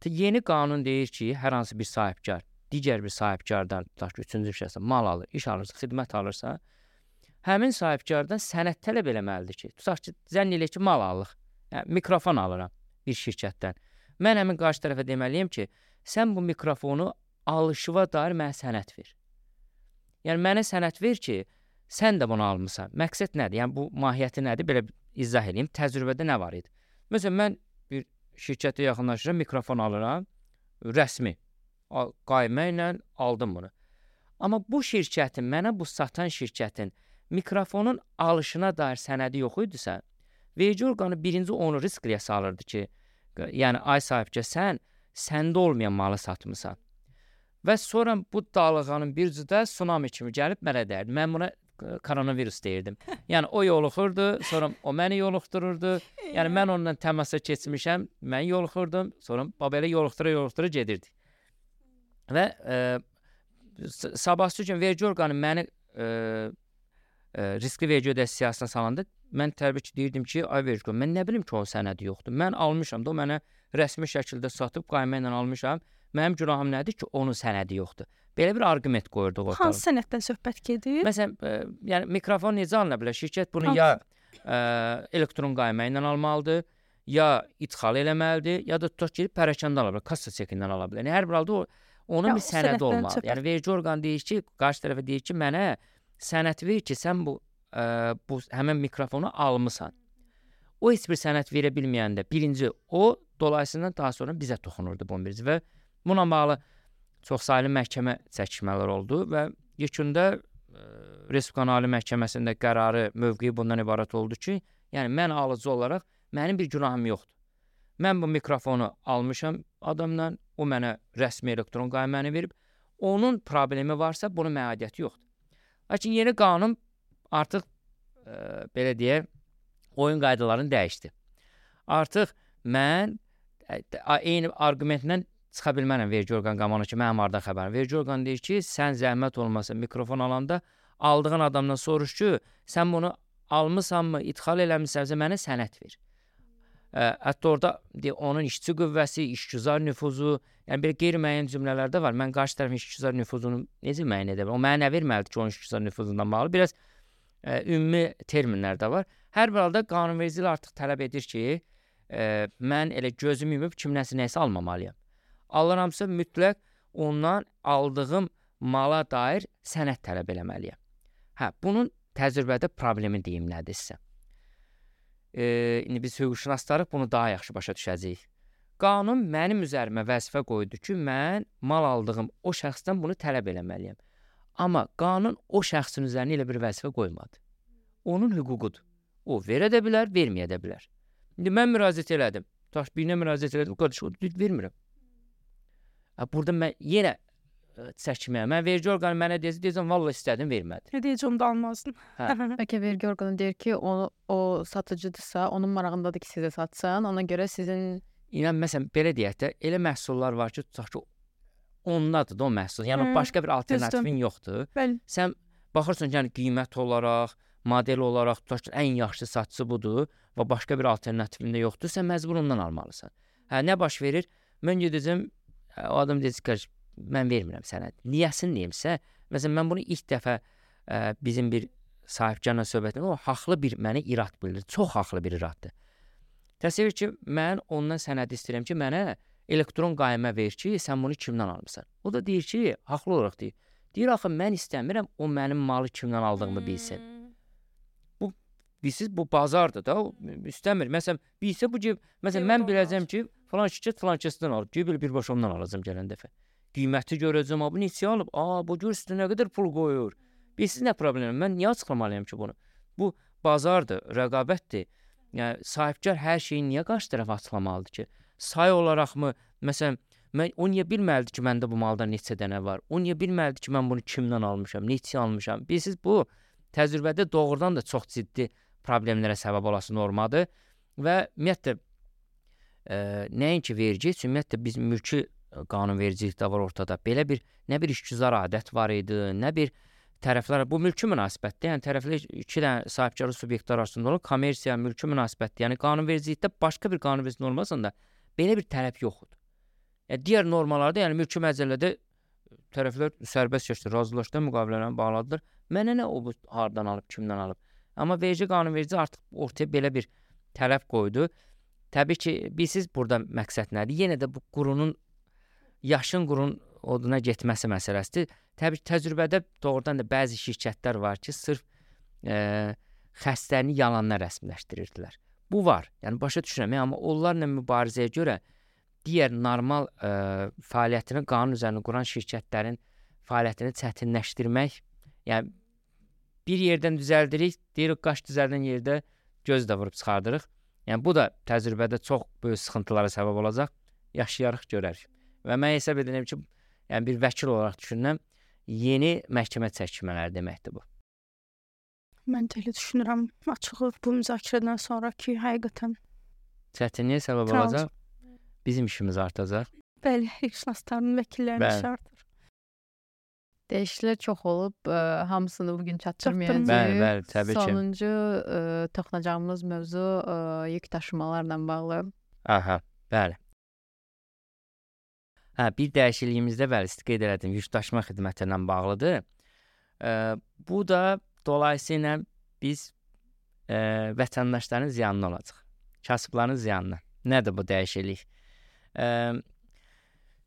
Speaker 2: Yeni qanun deyir ki, hər hansı bir sahibkar digər bir sahibkardan, tutaq ki, üçüncü bir şəxsə mal alır, iş alırsa, xidmət alırsa, həmin sahibkardan sənəd tələb eləməlidir ki, tutaq ki, zənn elə ki, mal alırıq, yəni, mikrofon alıram bir şirkətdən. Mən həmin qarşı tərəfə deməliyəm ki, sən bu mikrofonu alışıva dair mənə sənəd ver. Yəni, mənə sənəd ver ki, sən də bunu almısan. Məqsəd nədir? Yəni, bu mahiyyəti nədir? Belə izah edeyim. Təcrübədə nə var idi? Məsələn, mən bir şirkətə yaxınlaşıram, mikrofon alıram, rəsmi. Qaymə ilə aldım bunu. Amma bu şirkətin, mənə bu satan şirkətin mikrofonun alışına dair sənədi yox idisə, vergi orqanı birinci onu riskliyə salırdı ki, yəni ay sahibkar sən səndə olmayan malı satmısan. Və sonra bu dalğanın bir cüdə tsunami kimi gəlib mənə dəyirdi. Mən buna koronavirus deyirdim. Yəni o yoluxurdu, sonra o məni yoluxdururdu. Yəni mən onunla təmasa keçmişəm, mən yoluxurdum, sonra belə yoluxdura gedirdi. Və sabahsı gün vergi orqanı məni riskli vergi ödəyicisi siyahısına salanda mən təbii ki, deyirdim ki, ay vergi orqanı, mən nə bilim ki, o sənədi yoxdur. Mən almışam da, o mənə rəsmi şəkildə satıb, qayma ilə almışam. Mənim günahım nədir ki, onun sənədi yoxdur. Belə bir arqument qoyurduq ortaya.
Speaker 3: Hansı sənəddən söhbət gedir?
Speaker 2: Məsələn, yəni mikrofon necə alına bilər? Şirkət bunu ya elektron qayma ilə almalıdır, ya idxal eləməlidir, ya da tutaq ki, pərəkəndə ala bilər, kassa çekindən ala bilər. Yəni hər bir halda onun bir sənədi olmalıdır. Yəni vergi orqanı deyir ki, qarşı tərəfə deyir ki, mənə sənəd ver ki, sən bu həmin mikrofonu almısan. O heç bir sənəd verə bilməyəndə birinci o, dolayısıyla daha sonra bizə toxunurdu bu birisi və buna bağlı çoxsaylı məhkəmə çəkişmələr oldu və yekunda Respublika Ali Məhkəməsində qərarı, mövqeyi bundan ibarət oldu ki, yəni mən alıcı olaraq mənim bir günahım yoxdur. Mən bu mikrofonu almışam adamdan, o mənə rəsmi elektron qayməni verib, onun problemi varsa bunun məadiyyəti yoxdur. Lakin yeni qanun artıq belə deyək, oyun qaydalarını dəyişdi. Artıq mən eyni arqumentlə çıxa bilmərəm vergi orqanı qamanı ki, mənim hardan xəbərim. Vergi orqanı deyir ki, sən zəhmət olmasa mikrofon alanda aldığın adamdan soruş ki, sən bunu almısanmı, idxal eləmisənsə mənə sənəd ver. Hətta orada onun işçi qüvvəsi, işgüzar nüfuzu, yəni bir qeyri-müəyyən cümlələr də var. Mən qarşı tərəfin işgüzar nüfuzunu necə müəyyən edə bilərəm? O mənə nə verməlidir ki, onun işgüzar nüfuzundan bağlı? Biraz ümumi terminlər də var. Hər bir halda qanunvericilik artıq tələb edir ki, mən elə gözümü yumub kimləsə nəsə almamalıyam. Alıramsa mütləq ondan aldığım mala dair sənəd tələb eləməliyəm. Bunun təcrübədə problemi deyim nədir sizə? İndi biz hüquqşünaslarıq bunu daha yaxşı başa düşəcəyik. Qanun mənim üzərimə vəzifə qoydu ki, mən mal aldığım o şəxsdən bunu tələb eləməliyəm. Amma qanun o şəxsin üzərinə elə bir vəzifə qoymadı. Onun hüququdur. O verə də bilər, verməyə də bilər. İndi mən müraciət elədim. Birine müraciət elədim, qardaş, o vermirəm. Burada mən yenə çəkməyəm. Mən vergi orqanı mənə deyəcəm, vallahi istədim, vermədi.
Speaker 3: Nə deyəcəm də almazdım.
Speaker 1: Bəlkə vergi orqanı deyir ki, o satıcıdırsa, onun marağındadır ki, sizə satsın. Ona görə sizin...
Speaker 2: İnan, məsələn, belə deyək də, elə məhsullar var ki, tutaq ki, ondadır da o məhsul. Yəni, başqa bir alternativin yoxdur.
Speaker 3: Bəli.
Speaker 2: Sən baxırsan ki, yəni, qiymət olaraq, model olaraq, tutaq ki, ən yaxşı satıcı budur və başqa bir alternativin də yoxdur, sən məcbur ondan almalısan. Nə baş verir? Mən gedəcəm, o adam deyəcək ki, mən vermirəm sənə. Niyəsini deyimsə, məsələn, mən bunu ilk dəfə bizim bir sahibkarla söhbətində, o haqlı bir mənə irad bildirir. Çox haqlı bir iraddır. Təsəvvür ki, mən ondan sənəd istəyirəm ki, mənə elektron qaymə ver ki, sən bunu kimdən almısan? O da deyir ki, haqlı olaraq deyir. Deyir, axı, mən istəmirəm, o mənim malı kimdən aldığımı bilsin. Bilsiz, bu bazardır da, istəmir. Məsələn, bilsə bu ki, məsələn, mən biləcəm ki, falan şirkət falan kəsdən alıb, ki, birbaşa ondan alacam gələn dəfə. Qiyməti görəcəm, bu neçə alıb, bu gör üstə nə qədər pul qoyur. Bilsiz nə problemim, mən niyə açıqlamalıyam ki bunu? Bu bazardır, rəqabətdir. Yəni, sahibkar hər şeyi niyə qarşı tərəf açıqlamalıdır ki? Say olaraqmı, məsələn, o niyə bilməlidir ki, məndə bu malda neçə dənə var? O niyə bilməlidir ki, mən bunu kimdən almışam, neçə almışam? Bilsiz, bu təcrübədə doğrudan da çox ciddi problemlərə səbəb olası normadır və ümumiyyətlə nəinki vergi, ümumiyyətlə biz mülki qanunvericilik də var ortada. Belə bir, nə bir işgüzar adət var idi, nə bir tərəflər, bu mülki münasibətdir. Yəni tərəflər iki dənə sahibkarlıq subyektlər arasında olan kommersiya, mülki münasibətdir. Yəni qanunvericilikdə başqa bir qanunvericilik normasında belə bir tələb yoxdur. Yəni digər normalarda, yəni mülki məcəllədə tərəflər sərbəst şəkildə razılaşdı, müqavilələrini bağladılar. Mənə nə o bu hardan alıb, kimdən alıb? Amma vergi qanunverici artıq ortaya belə bir tələb qoydu. Təbii ki, bilsiz burada məqsəd nədir? Yenə də bu qurunun, yaşın qurun oduna getməsi məsələsidir. Təbii ki, təcrübədə doğrudan da bəzi şirkətlər var ki, sırf xəstəni yalanla rəsmiləşdirirdilər. Bu var, yəni başa düşürəm, amma onlarla mübarizəyə görə digər normal fəaliyyətini qanun üzərində quran şirkətlərin fəaliyyətini çətinləşdirmək, yəni bir yerdən düzəldirik, deyirik, qaş düzəldən yerdə göz də vurub çıxardırıq. Yəni, bu da təcrübədə çox böyük sıxıntılara səbəb olacaq. Yaşayarıq, görərik. Və mən hesab edirəm ki, yəni bir vəkil olaraq düşünürəm, yeni məhkəmə çəkmələri deməkdir bu.
Speaker 3: Mən də elə düşünürəm, açığı bu müzakirədən sonra ki, həqiqətən
Speaker 2: çətinliyə səbəb olacaq, bizim işimiz artacaq.
Speaker 3: Bəli, hüquqşünasların vəkillərinin işi artır.
Speaker 1: Dəyişikliklər çox olub, hamısını bugün çatdırmayacağıq.
Speaker 2: Bəli, təbii ki.
Speaker 1: Sonuncu toxunacağımız mövzu yük daşımalarla bağlı.
Speaker 2: Aha, bəli. Bir dəyişikliyimizdə bəli, qeyd elədim, yük daşıma xidməti ilə bağlıdır. Bu da dolayısıyla biz vətəndaşların ziyanına olacaq. Kasıbların ziyanına. Nədir bu dəyişiklik?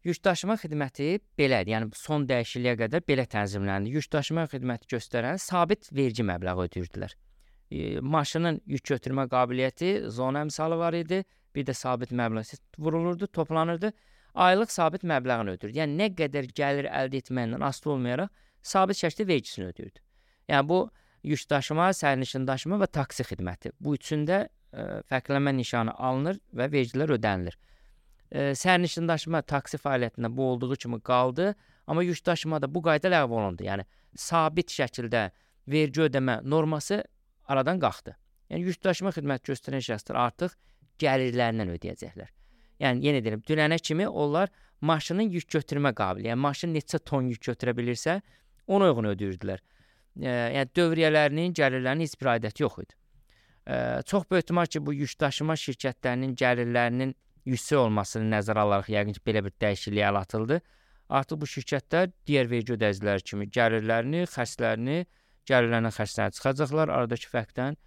Speaker 2: Yük daşıma xidməti belədir, yəni son dəyişikliyə qədər belə tənzimləndi. Yük daşıma xidməti göstərən sabit vergi məbləği ödəyirdilər. Maşının yük götürmə qabiliyyəti, zona əmsalı var idi, bir də sabit məbləğ vurulurdu, toplanırdı, aylıq sabit məbləğini ödəyirdi. Yəni nə qədər gəlir əldə etməyindən asılı olmayaraq sabit şəkildə vergisini ödəyirdi. Yəni bu yük daşıma, sərnişin daşıma və taksi xidməti. Bu üçündə fərqlənmə nişanı alınır və vergilər ödənilir. Sərnişin daşıma taksi fəaliyyətində bu olduğu kimi qaldı, amma yük daşımada bu qayda ləğv olundu. Yəni sabit şəkildə vergi ödəmə norması aradan qalxdı. Yəni yük daşıma xidməti göstərən şəxslər artıq gəlirlərindən ödəyəcəklər. Yəni yenə deyirəm, dünənə kimi onlar maşının yük götürmə qabiliyyəti, yəni maşın neçə ton yük götürə bilirsə, ona uyğun ödəyirdilər. Yəni dövriyyələrinin, gəlirlərinin heç bir aidiyyəti yox idi. Çox böyük ehtimal ki, bu yük daşıma şirkətlərinin gəlirlərinin yüksək olmasını nəzərə alaraq yəqin ki, belə bir dəyişikliyə əl atıldı. Artıq bu şirkətlər digər vergi ödəyiciləri kimi gəlirlərini, xərclərini, gəlirlərindən xərclərini çıxacaqlar, aradakı fərqdən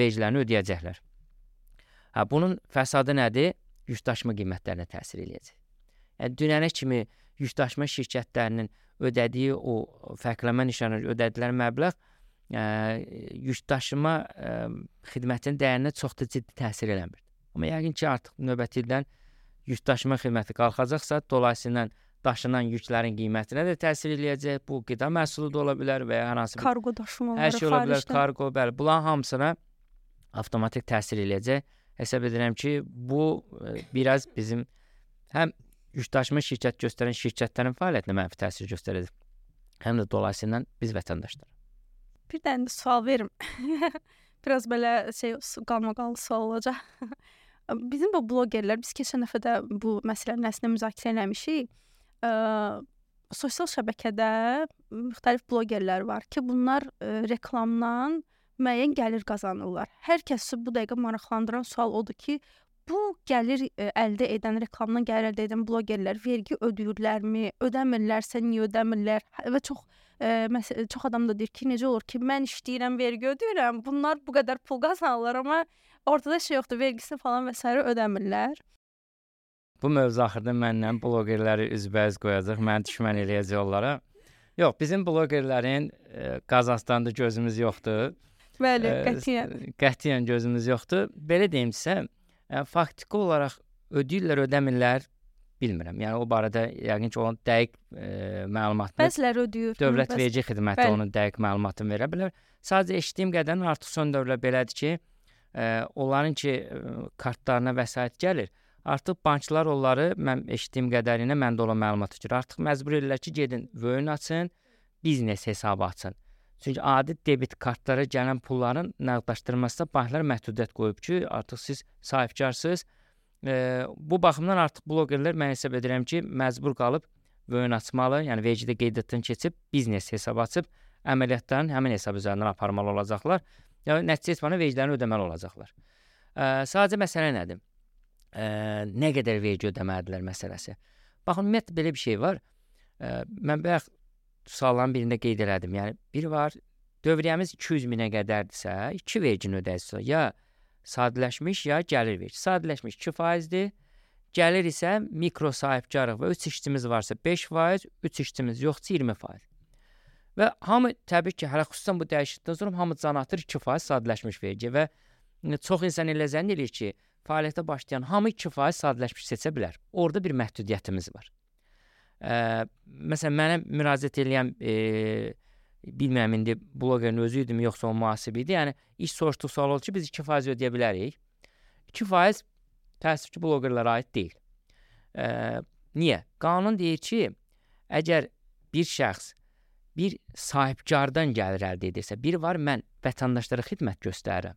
Speaker 2: vergilərini ödəyəcəklər. Bunun fəsadı nədir? Yük daşıma qiymətlərinə təsir eləyəcək. Yəni dünənə kimi yükdaşıma şirkətlərinin ödədiyi o fərqlənmə nişanı ödədikləri məbləğ yükdaşıma xidmətinin dəyərinə çox da ciddi təsir eləmir. Amma yəqin ki, artıq növbəti ildən yükdaşıma xidməti qalxacaqsa, dolayısıyla daşınan yüklərin qiymətinə də təsir eləyəcək. Bu qida məhsulu da ola bilər və ya hər hansı bir
Speaker 3: Kargo daşımaları,
Speaker 2: hər şey ola bilər,
Speaker 3: xaricdən.
Speaker 2: kargo, bəli. Bunların hamısına avtomatik təsir eləyəcək. Hesab edirəm ki, bu biraz bizim həm yükdaşıma şirkət göstərən şirkətlərin fəaliyyətinə mənfi təsir göstərəcək, həm də dolayısıyla biz vətəndaşlar.
Speaker 3: Bir dənə də sual verim. Biraz belə qalmaqallı sual olacaq. Bizim bu blogerlər, biz keçən dəfə də bu məsələnin əslində müzakirə eləmişik. Sosial şəbəkədə müxtəlif blogerlər var ki, bunlar reklamdan müəyyən gəlir qazanırlar. Hər kəsi bu dəqiqə maraqlandıran sual odur ki, bu gəlir əldə edən, reklamdan gəlir əldə edən blogerlər vergi ödəyirlərmi, ödəmirlərsə niyə ödəmirlər? Və çox adam da deyir ki, necə olur ki, mən işləyirəm, vergi ödəyirəm, bunlar bu qədər pul qazanırlar, amma ortada şey yoxdur, vergisini falan və s. ödəmirlər.
Speaker 2: Bu mövzu axırda məndən blogerləri üzbəüz qoyacaq, məni düşmən eləyəcək onlara. Yox, bizim blogerlərin Qazaxstanda gözümüz yoxdur.
Speaker 3: Bəli, qətiyyən.
Speaker 2: Qətiyyən gözümüz yoxdur. Belə deyim sizə, faktiki olaraq ödəyirlər, ödəmirlər, bilmirəm. Yəni o barədə yəqin ki, onun dəqiq məlumatını
Speaker 3: Bəziləri ödəyir.
Speaker 2: Dövlət Vergi Xidməti onun dəqiq məlumatını verə bilər. Sadəcə eşitdiyim qədərilə artıq son dövrlər belədir ki, onların ki, kartlarına vəsait gəlir. Artıq banklar onları, mən eşitdiyim qədərilə məndə olan məlumata görə artıq məcbur edirlər ki, gedin vöyn açın, biznes hesabı açın. Çünki adi debit kartlara gələn pulların nəqdləşdirilməsində banklar məhdudiyyət qoyub ki, artıq siz sahibkarsınız. Bu baxımdan artıq blogerlər mən hesab edirəm ki, məcbur qalıb vöyn açmalı, yəni vergidə qeydiyyatdan keçib biznes hesabı açıb əməliyyatların həmin hesab üzərindən aparmalı olacaqlar. Yəni nəticə etməli vergilərini ödəməli olacaqlar. Sadəcə məsələ nədir? Nə qədər vergi ödəməlidirlər məsələsi. Baxın, ümumiyyətlə belə bir şey var. Mən bayaq sualların birində qeyd elədim. Yəni, biri var, dövriyyəmiz 200 minə qədərdirsə, 2 vergini ödəyirsə, ya sadələşmiş, ya gəlir vergi. Sadələşmiş 2%-dir, gəlir isə mikro sahibkarlıq və 3 işçimiz varsa 5%, 3 işçimiz yoxsa 20%. Və hamı, təbii ki, hələ xüsusən bu dəyişiklikdən sonra hamı can atır 2% sadələşmiş vergi və çox insan elə zənn edir ki, fəaliyyətə başlayan hamı 2% sadələşmiş seçə bilər. Orada bir məhdudiyyətimiz var. Məsələn, mənə müraciət edən bilmirəm, indi blogerin özü idi mi, yoxsa o mühasib idi. Yəni, iş soruşduq sual oldu ki, biz 2% ödəyə bilərik. 2% təəssüf ki, blogerlərə aid deyil. Niyə? Qanun deyir ki, əgər bir şəxs bir sahibkardan gəlir əldə edirsə, biri var, mən vətəndaşlara xidmət göstərirəm.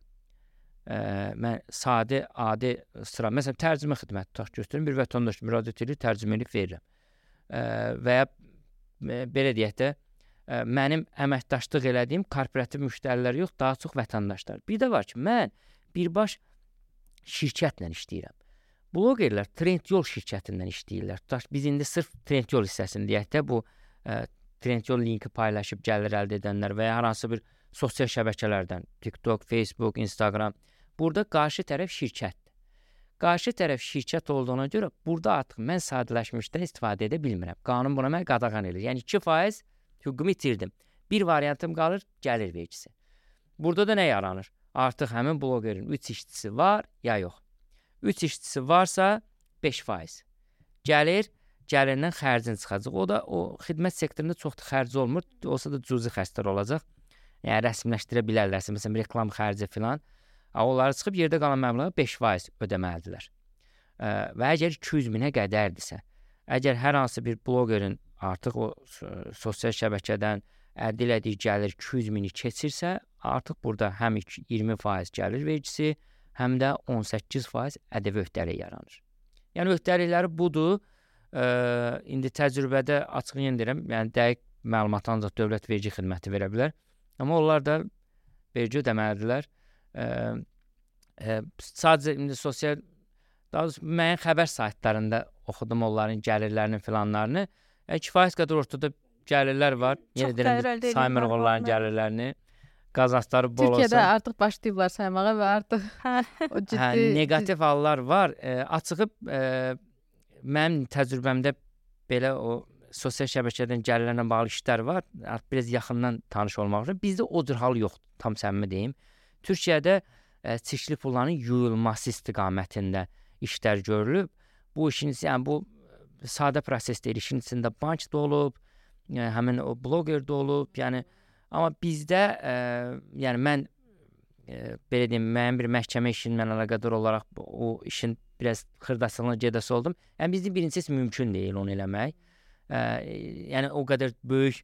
Speaker 2: Mən sadə, adi sıra, məsələn, tərcümə xidməti tutaq göstərim, bir vətəndaş müraciət edir, tərcümə edib verirəm. Və ya belə deyək də, mənim əməkdaşlıq elədiyim korporativ müştərilər yox, daha çox vətəndaşlar. Bir də var ki, mən birbaş şirkətlə işləyirəm. Blogerlər Trendyol şirkətindən işləyirlər. Tutaq, biz indi sırf Trendyol hissəsini deyək də, bu Trendyol linki paylaşıb gəlir əldə edənlər və ya hər hansı bir sosial şəbəkələrdən, TikTok, Facebook, Instagram, burada qarşı tərəf şirkətdir. Qarşı tərəf şirkət olduğuna görə burada artıq mən sadələşmişdən istifadə edə bilmirəm. Qanun buna mən qadağan edir. Yəni 2% hüququmu itirdim. Bir variantım qalır, gəlir vergisi. Burada da nə yaranır? Artıq həmin blogerin 3 işçisi var ya yox. 3 işçisi varsa 5%. Gəlirindən xərcin çıxacaq. O da o xidmət sektorunda çox da xərci olmur. Olsa da cüzi xərclər olacaq. Yəni rəsmiləşdirə bilərlərsə, məsələn, reklam xərci filan. Onları çıxıb yerdə qalan məbləğə 5% ödəməlidirlər. Və əgər 200 minə qədərdirsə, əgər hər hansı bir blogerin artıq o sosial şəbəkədən əldə elədiyi gəlir 200 mini keçirsə, artıq burada həm 20% gəlir vergisi, həm də 18% ƏDV öhdəliyi yaranır. Yəni öhdəlikləri budur. İndi təcrübədə açıq yendirəm, yəni dəqiq məlumat ancaq Dövlət Vergi Xidməti verə bilər. Amma onlar da vergi ödəməlidirlər. Sadəcə indi sosial, daha doğrusu müəyyən xəbər saytlarında oxudum onların gəlirlərinin filanlarını. Kifayət qədər ortada gəlirlər var. Yenə deyirəm, saymırıq onların gəlirlərini. Qazançları bol olsa.
Speaker 1: Türkiyədə artıq başlayıblar saymağa və artıq o ciddi...
Speaker 2: Negativ hallar var. Açığı mənim təcrübəmdə belə o sosial şəbəkədən gəlirlərlə bağlı işlər var. Artıq biraz yaxından tanış olmaq üçün. Bizdə o cür hal yoxdur, tam səmimi deyim. Türkiyədə çirkli pulların yuyulması istiqamətində işlər görülüb. Bu işin, yəni bu sadə proses deyil. İşin içində bank da olub, həmin o bloger də olub. Yəni amma bizdə yəni mən belə deyim, müəyyən bir məhkəmə işinlə əlaqədar olaraq o işin biraz xırdaçılığına gedəsi oldum. Yəni bizdə birincisi mümkün deyil onu eləmək. Yəni o qədər böyük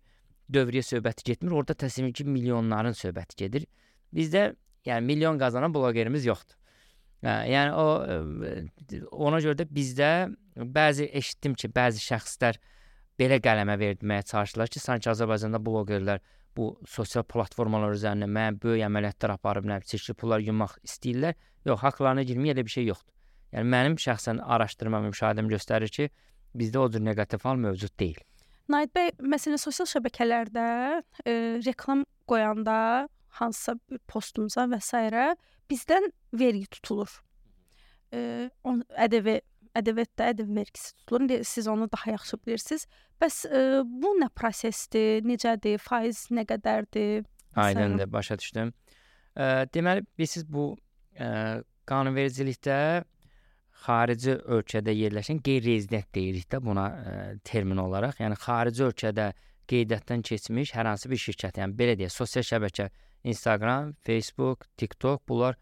Speaker 2: dövriyyə söhbəti getmir. Orada təsəvvür ki, milyonların söhbəti gedir. Bizdə yəni milyon qazanan blogerimiz yoxdur. Yəni ona görə də bizdə bəzi eşitdim ki, bəzi şəxslər belə qələmə verməyə çalışırlar ki, sanki Azərbaycanda blogerlər bu sosial platformalar üzərində müəyyən böyük əməliyyatlar aparıb, çirkli pullar yummaq istəyirlər. Yox, haqlarına girmək elə bir şey yoxdur. Yəni mənim şəxsən araşdırmam, müşahidəm göstərir ki, bizdə o cür neqativ hal mövcud deyil.
Speaker 3: Nahid bəy, məsələn, sosial şəbəkələrdə reklam qoyanda hansısa bir postumuza və s. bizdən vergi tutulur. ƏDV vergisi tutulur. Siz onu daha yaxşı bilirsiniz. Bəs bu nə prosesdir, necədir, faiz nə qədərdir?
Speaker 2: Aydındır, başa düşdüm. Deməli, siz bu qanunvericilikdə xarici ölkədə yerləşən qeyri-rezident deyirik də buna termin olaraq. Yəni xarici ölkədə qeydiyyatdan keçmiş hər hansı bir şirkət, yəni belə deyək, sosial şəbəkə, Instagram, Facebook, TikTok, bunlar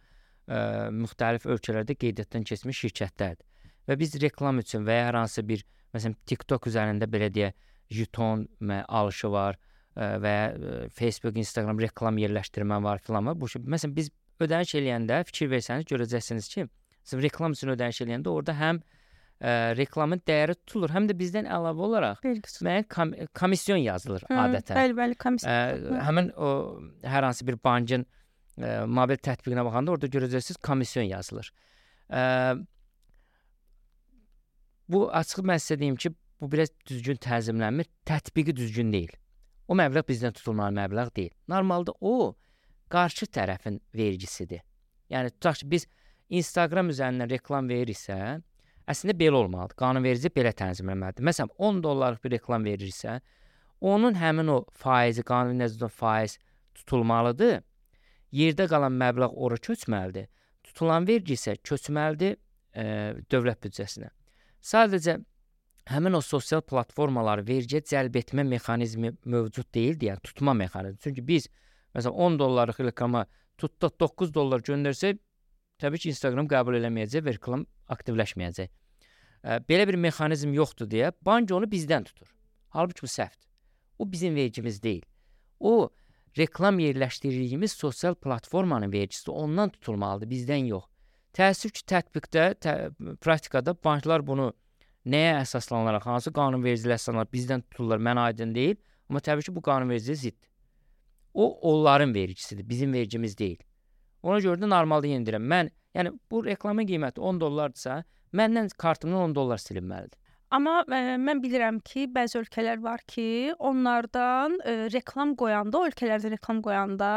Speaker 2: müxtəlif ölkələrdə qeydiyyatdan keçmiş şirkətlərdir. Və biz reklam üçün və ya hər hansı bir, məsələn, TikTok üzərində belə deyək, jeton alışı var və ya Facebook, Instagram reklam yerləşdirmə var filan var. Məsələn, biz ödəniş eləyəndə fikir versəniz görəcəksiniz ki, reklam üçün ödəniş eləyəndə orada həm reklamın dəyəri tutulur, həm də bizdən əlavə olaraq müəyyən komisyon yazılır adətən.
Speaker 3: Bəli, komisyon.
Speaker 2: Həmin o hər hansı bir bankın mobil tətbiqinə baxanda orada görəcəksiniz komisyon yazılır. Bu açıq mən sizə deyim ki, bu biraz düzgün tənzimlənmir, tətbiqi düzgün deyil. O məbləğ bizdən tutulmalı məbləğ deyil. Normalda o qarşı tərəfin vergisidir. Yəni tutaq ki, biz Instagram üzərindən reklam veririksə, əslində belə olmalıdır. Qanunverici belə tənzimləməlidir. Məsələn, $10 bir reklam verirsə, onun həmin o faizi, qanuni nəzərdə faiz tutulmalıdır. Yerdə qalan məbləğ ora köçməlidir. Tutulan vergi isə köçməlidir dövlət büdcəsinə. Sadəcə həmin o sosial platformaları vergiyə cəlb etmə mexanizmi mövcud deyildi, yəni tutma mexanizmi. Çünki biz məsələn $10 reklama tutduq $9 göndərsək, təbii ki, Instagram qəbul eləməyəcək və reklam aktivləşməyəcək. Belə bir mexanizm yoxdur deyə bank onu bizdən tutur. Halbuki bu səhvdir. O bizim vergimiz deyil. O reklam yerləşdirdiyimiz sosial platformanın vergisi ondan tutulmalıdır, bizdən yox. Təəssüf ki, tətbiqdə, praktikada banklar bunu nəyə əsaslanaraq, hansı qanunvericiliyə əsaslanaraq bizdən tuturlar, mənə aydın deyil. Amma təbii ki, bu qanunvericiliyə ziddir. O, onların vergisidir, bizim vergimiz deyil. Ona görə də normalda yenildirəm. Yəni bu reklamın qiyməti $10-dırsa, məndən kartımdan $10 silinməlidir.
Speaker 3: Amma mən bilirəm ki, bəzi ölkələr var ki, onlardan reklam qoyanda, o ölkələrdə reklam qoyanda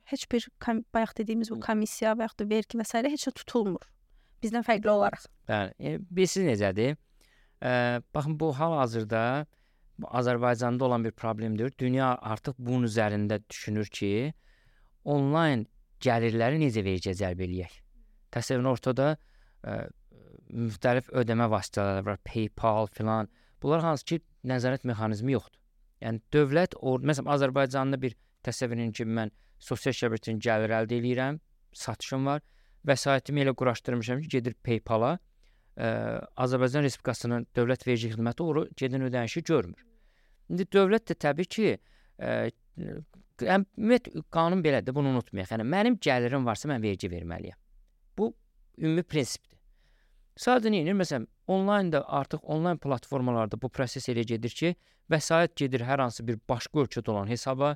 Speaker 3: heç bir bayaq dediyimiz bu komissiya və yaxud da vergi və s. heç nə tutulmur. Bizdən fərqli olaraq.
Speaker 2: Bəli, bilirsiniz necədir? Baxın, bu hal-hazırda Azərbaycanda olan bir problemdir. Dünya artıq bunun üzərində düşünür ki, onlayn gəlirləri necə vergiyə cəlb eləyək? Təsəvvürün ortada müxtəlif ödəmə vasitələri var, PayPal filan. Bunlar hansı ki, nəzarət mexanizmi yoxdur. Yəni dövlət, məsələn, Azərbaycanda bir təsəvvürün ki, mən sosial şəbəkədən gəlir əldə edirəm, satışım var, vəsaitimi elə quraşdırmışam ki, gedir PayPal-a, Azərbaycan Respublikasının dövlət vergi xidməti onu gedən ödənişi görmür. İndi dövlət də təbii ki, qanun belədir, bunu unutmayaq. Yəni mənim gəlirim varsa mən vergi verməliyəm. Bu ümumi prinsipdir. Sadəcə nə edir? Məsələn, onlaynda artıq onlayn platformalarda bu proses elə gedir ki, vəsait gedir hər hansı bir başqa ölkədə olan hesaba,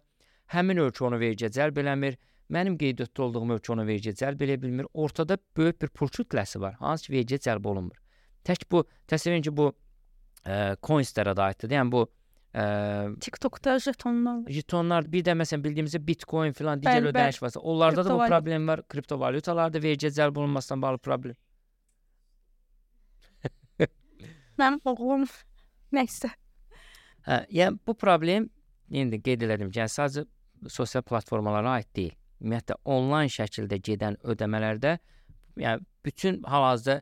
Speaker 2: həmin ölkə onu vergiyə cəlb eləmir, mənim qeydiyyatda olduğum ölkə onu vergiyə cəlb eləyə bilmir. Ortada böyük bir pul kütləsi var, hansı ki, vergiyə cəlb olunmur. Tək bu, təsəvvürün ki, bu coinslərə də aiddir. Yəni bu
Speaker 3: TikTokda
Speaker 2: jetonlar, bir də məsələn bildiyimizdə Bitcoin filan digər ödəniş varsa, onlarda da bu problem var. Kriptovalyutalarda vergiyə cəlb olunmasından bağlı problem.
Speaker 3: Mənim oğlum Nəysə.
Speaker 2: Yəni bu problem indi qeyd elədim ki, yəni sadəcə sosial platformalara aid deyil. Ümumiyyətlə onlayn şəkildə gedən ödəmələrdə yəni bütün hal-hazırda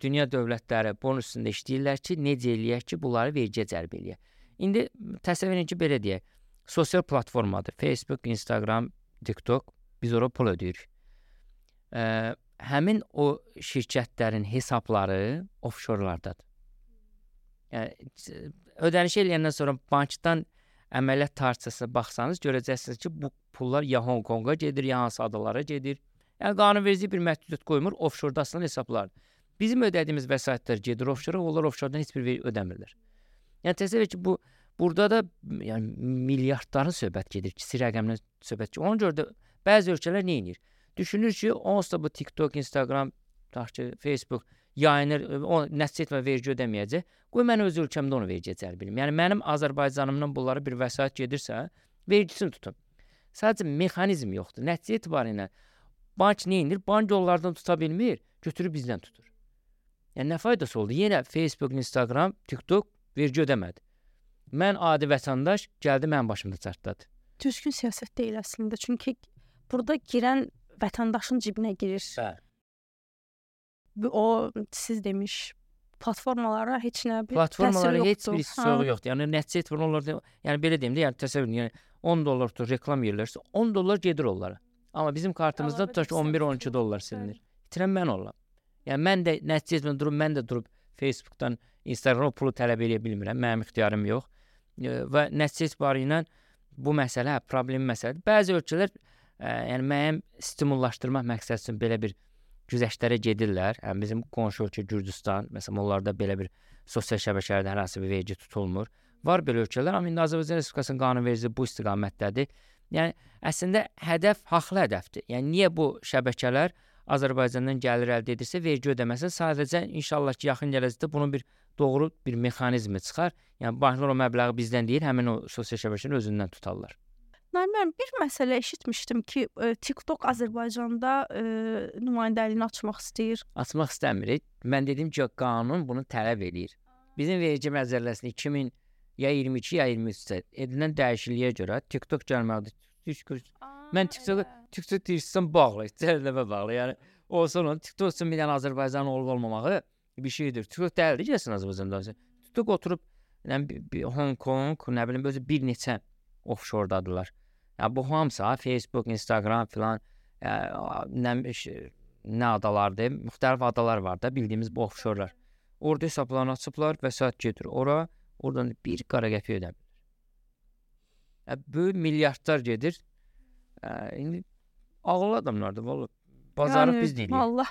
Speaker 2: dünya dövlətləri bunun üstündə işləyirlər ki, necə eləyək ki, bunları vergiyə cəlb eləyək. İndi təsəvvür edin ki, belə deyək, sosial platformadır. Facebook, Instagram, TikTok, biz ora pul ödəyirik. Həmin o şirkətlərin hesabları offshorlardadır. Yəni ödəniş eləyəndən sonra bankdan əməliyyat tarixçasına baxsanız görəcəksiniz ki, bu pullar ya Hong Konga gedir, ya hansı adalara gedir. Yəni qanunverici bir məhdudiyyət qoymur, offshorda asılan hesablardır. Bizim ödədiyimiz vəsaitlər gedir offshora, onlar offshordan heç bir vergi ödəmirlər. Yəni təsəvvür et ki, burada da yəni milyardların söhbət gedir, kiçik rəqəmdən söhbət gedir. Ona görə də bəzi ölkələr nə edir? Düşünür ki, onsuz da bu TikTok, Instagram, Facebook yayınır, o nəticə etmə vergi ödəməyəcək. Qoy mən öz ölkəmdə onu vergiyə cəlb edim. Yəni mənim Azərbaycanımdan bunlara bir vəsait gedirsə, vergisini tutun. Sadəcə mexanizm yoxdur. Nəticə etibarilə bank nə edir? Bank onlardan tuta bilmir, götürüb bizdən tutur. Yəni nə faydası oldu? Yenə Facebook, Instagram, TikTok vergi ödəmədi. Mən adi vətəndaş gəldi mənim başımda çartladı.
Speaker 3: Düzgün siyasət deyil əslində. Çünki burada girən vətəndaşın cibinə girir.
Speaker 2: Bəli.
Speaker 3: O siz demiş platformalara heç nə bir
Speaker 2: Platformalara
Speaker 3: təsiri
Speaker 2: heç
Speaker 3: yoxdur.
Speaker 2: bir soğuğu yoxdur. Yəni nəticə etibarilə onlar yəni belə deyim də, yəni təsəvvür edin, yəni 10 dollar tutur reklam yerlərsə 10 dollar gedir onlara. Amma bizim kartımızda tutar ki 11-12 dollar silinir. İtirən mən olam. Yəni mən də nəticə etmə mən də durub Facebookdan, Instagramdan pulu tələb edə bilmirəm. Mənim ixtiyarım yox. Və nəticə etibarilə bu məsələ problem məsələdir. Bəzi ölkələr yəni müəyyən stimullaşdırmaq məqsədi üçün belə bir güzəştlərə gedirlər. Yəni bizim qonşu ölkə Gürcüstan, məsələn, onlarda belə bir sosial şəbəkələrdə hər hansı bir vergi tutulmur. Var belə ölkələr, amma indi Azərbaycan Respublikasının qanunvericiliyi bu istiqamətdədir. Yəni əslində hədəf haqlı hədəfdir. Yəni niyə bu şəbəkələr Azərbaycandan gəlir əldə edirsə vergi ödəməsin? Sadəcə inşallah ki, yaxın gələcəkdə bunun bir doğru bir mexanizmi çıxar. Yəni banklar o məbləği bizdən deyil, həmin o sosial şəbəkənin özündən tutarlar.
Speaker 3: Mən bir məsələ eşitmişdim ki, TikTok Azərbaycanda nümayəndəliyini açmaq istəyir.
Speaker 2: Açmaq istəmir. Mən dedim ki, qanun bunu tələb eləyir. Bizim vergi məcəlləsində 2000 ya 22 ya 23-də edilən dəyişikliyə görə TikTok gəlməlidir. Mən TikTok deyirsən bağlı, cəhəlləmə bağlı. Yəni olsa onun TikTok üçün bir dənə Azərbaycanın olub-olmamağı bir şeydir. TikTok dəldir gəlsin Azərbaycanda. TikTok oturub Hong Kong, nə bilim özü bir neçə offshore-dadılar. Yəni bu hamısı Facebook, Instagram filan nə adalardır, müxtəlif adalar var da bildiyimiz bu offshore-lar. Orada hesablarını açıblar, vəsait gedir ora, oradan bir qara qəpik ödəmir. Böyük milyardlar gedir. İndi ağıllı adamlardır vallahi. Bazarı biz deyirik.
Speaker 3: Allah